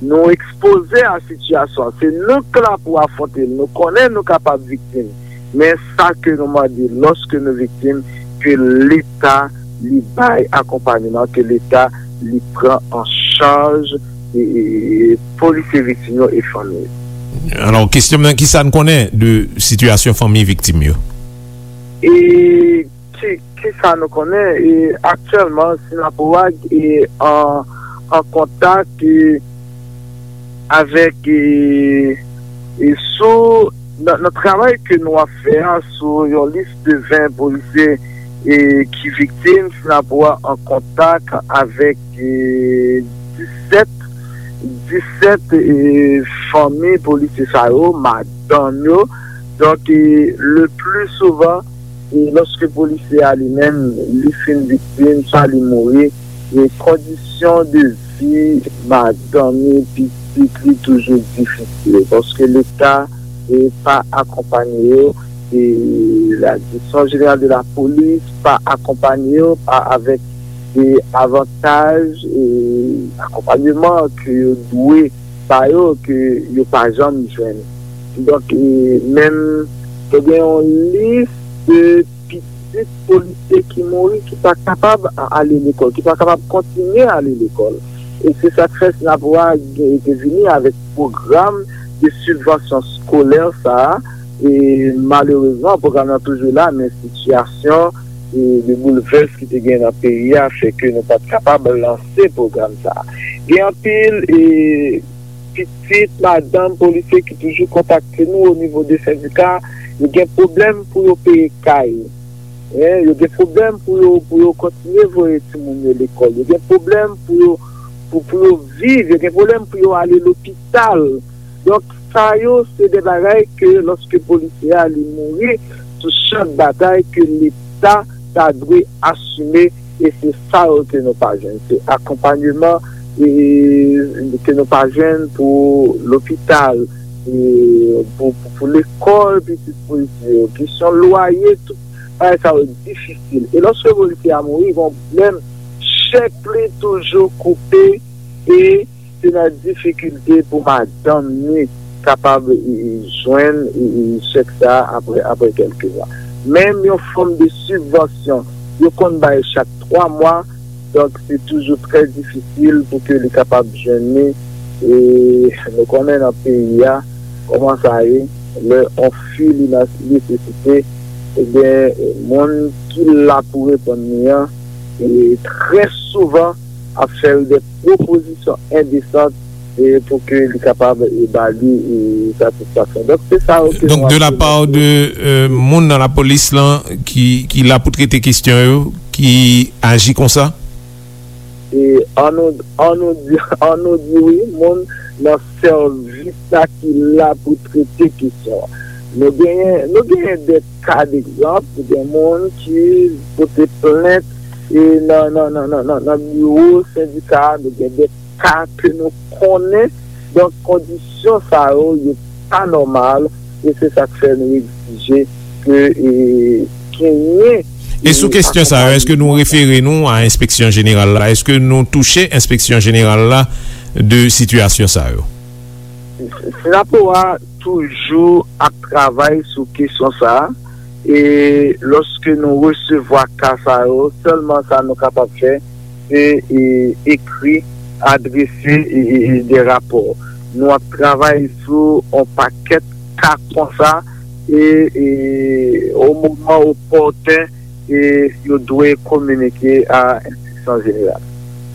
nou ekspoze a sitiyasyon an. Se nou k la pou afwonte l. Nou konnen nou kapab viktim. Men sa ke nou mande, lòske nou viktim, ke Leta li bay akonpanyeman, ke Leta li pran an chaj, e, e, e, polisye viktim yo e fanmi yo. Alò, kesyon mwen, kisa n konnen de sitiyasyon fanmi viktim yo? E ki, ki sa nou konnen? E aktyèlman, Synapoag e an, an kontak, e, avèk, e, e sou, nan, nan travay ke nou ap fè a, sou yon lis de ven polisye, e, ki viktim, Synapoag an kontak avèk, e, disèt, disèt, e, fanmi polisye sa yo, madanm yo. Donk, e, le pli souvan, e, lòske polisye a li menm, li fin viktim, swa li mouri, e kondisyon de vi madanm li, pitit li toujou difisil, paske Leta, e, pa akonpanye yo, e la Direction Générale de la Police pa akonpanye yo, pa avèk de avantaj, e akonpanyeman ke yo dwe ba yo, ke yo pa janm jwenn. Donk, e, menm te gen yon lis de pitit polisye ki mouri, ki pa kapab a-, ale lekòl, ki pa kapab kontinye ale lekòl. E se sa k fè Synapoag te vini avèk pwogram de sibvansyon eskolè sa a. E malerezman, pwogram nan toujou la, men sitiyasyon, e, de boulvès ki te gen nan peyi a fè ke nou pa t kapab lanse pwogram sa a. Gen anpil, e, pitit, madanm polisye ki toujou kontakte nou o nivo de sendika, yo gen pwoblèm pou yo peye kay. Hein, yo gen pwoblèm pou yo, pou yo kontinye voye timoun yo lekòl. Yo gen pwoblèm pou yo, pou, pou yo viv. Yo gen pwoblèm pou yo ale lopital. Donk, sa yo, se de bagay ke lòske polisye a li mouri sou chan batay, ke Leta ta dwe asime, e se sa yo ke nou pa jwenn. Se akonpanyeman e, ke nou pa jwenn pou lopital, e, pou, pou, pou lekòl pitit polisye yo, kesyon lwaye, tout bagay sa yo difisil. E lòske polisye a mouri, gen yon pwoblèm, chèk li toujou koupe, e se nan difikilte pou madanm ni kapab, e, e, jwenn, e, e, chèk sa a apre, apre kèlke mwa. Menm yon fòm de sibvansyon, yo konn bay chak twa mwa, donk se toujou trè difisil pou ke li kapab jwenn ni. E nou konnen nan peyi a, kòman sa ye, lè yon fi li nan nesesite, ebyen, moun ki la pou reponn li an, e trè souvan, ap fè l de pwopozisyon endesan, e pou ke li kapab, e, ba li, e, satisfaksyon. Donk, se sa yo ke Donk, nou de la ap part de, euh, moun nan lapolis lan ki, ki la pou trete kesyon yo, ki aji konsa? E an nou, an nou di, an nou di wi, moun nan sèvis la ki la pou trete kesyon an. Nou genyen, nou genyen de ka degzanp, gen moun ki pote plent e nan, nan, nan, nan, nan, nan biwo sendika a, nou gen de ka ke nou konnen. Donk, kondisyon sa yo, yo pa nòmal, e se sa k fè nou egzije ke, e, genyen, E sou e, kesyon sa yo, akonpayman. Èske nou refere nou a enspeksyon jeneral la? Èske nou touche enspeksyon jeneral la de sitiyasyon sa yo? Sinapo a toujou ap travay sou kesyon sa a, e lòske nou resevwa ka sa yo, sèlman sa nou kapab fè, se, e, ekri, adrese, e, e, e, de rapò. Nou ap travay sou yon pakèt ka konsa, e, e, o moman opòten, e, yo dwe kominike a enspeksyon jeneral.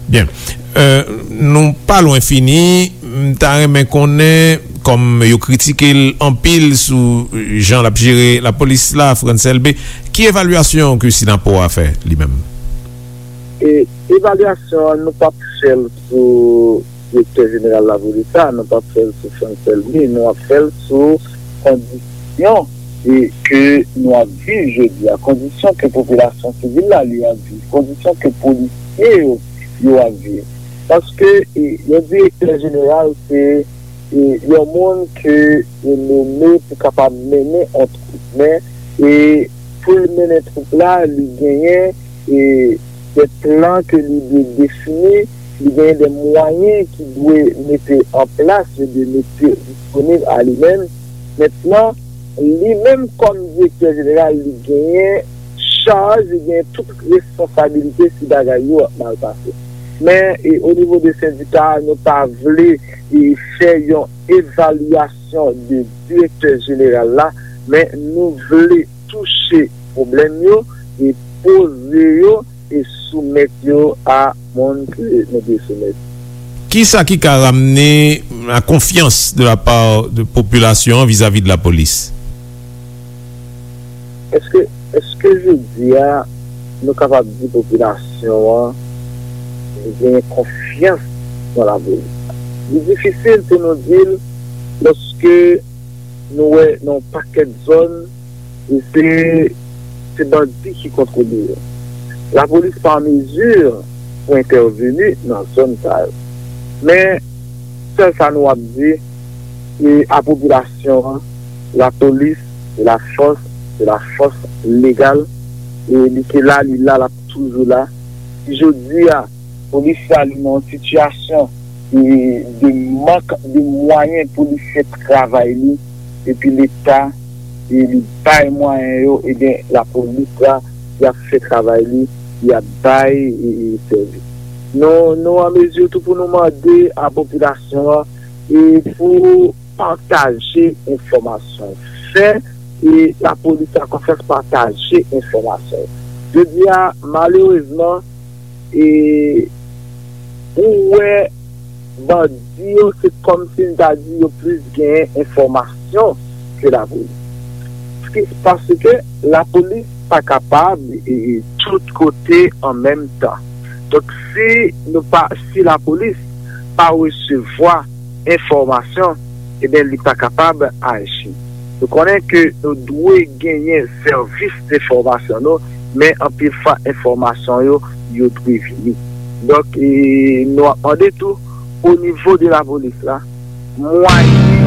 Byen. Euh, nou pa lwen fini. M ta renmen konnen, kòm yo kritike l anpil sou jan l ap jere lapolis la, Frantz Elbé, ki evalyasyon ke Sinapo a fè li menm? E evalyasyon an, nou p ap fè l sou direktè jeneral lapolis la, nou p ap fè l sou Frantz Elbé, nou ap fè l sou kondisyon e ke nou ap viv jodi a, kondisyon ke popilasyon sivil la li ap viv, kondisyon ke polisye yo, yo ap viv. Paske, e, yon direktè jeneral se, e, yon moun ke yo nome pou kapab mennen yon twoup. Men, e, pou l mennen twoup la, li genyen, e, de plan ke li dwe defini, li genyen de mwayen ki dwe mete an plas, yo dwe mete disponib a li menm. Mentnan, li menm kòm direktè jeneral, li genyen chaj, li genyen tout responsabilite si bagay yo ap mal pase. Men, e, o nivo de sendika a, nou pa vle, e, fè yon evalyasyon de direktè jeneral la, men nou vle touche pwoblèm yo e poze yo e soumèt yo a moun ke nou dwe soumèt. Kisa ki ka ramne la konfyans de la part de popilasyon an vizavi de lapolis? Èske, èske jodi a nou kapab di popilasyon an genyen konfyans nan lapolis? Li difisil pou nou di l lòske nou wè nan yon pakèt zòn, e se, se bandi ki kontwole yo. Lapolis pa an mezi pou entèveni nan zòn sa yo. Men, sèl sa nou ap di, e a popilasyon an, lapolis, se la fòs, se la fòs legal, e li te la, li la, l ap toujou la. Si jodi a, polis la, li nan yon sitiyasyon, e, de mank de mwayen pou li fè travay li, epi Leta, e, li bay mwayen yo, ebyen, lapolis la, y ap fè travay li, y ap bay, e, e, sèvis. Nou, nou an mezi tou pou nou mande a popilasyon an, e, pou pataje enfòmasyon. Fè, e, lapolis la konfyans, pataje enfòmasyon. Jodi a, malerezman, e, ou wè bandi yo, se kòmsi m ta di yo plis genyen enfòmasyon ke lapolis. Paske, paske lapolis pa kapab, e, e, tout kote an menm tan. Donk, si nou pa, si lapolis pa resevwa enfòmasyon, ebyen, li pa kapab aji. Nou konnen ke nou dwe genyen sèvis enfòmasyon nou, men anpil fwa enfòmasyon yo, yo dwe vini. Donk, e, nou ap mande tou, o nivo de lapolis la, mwayen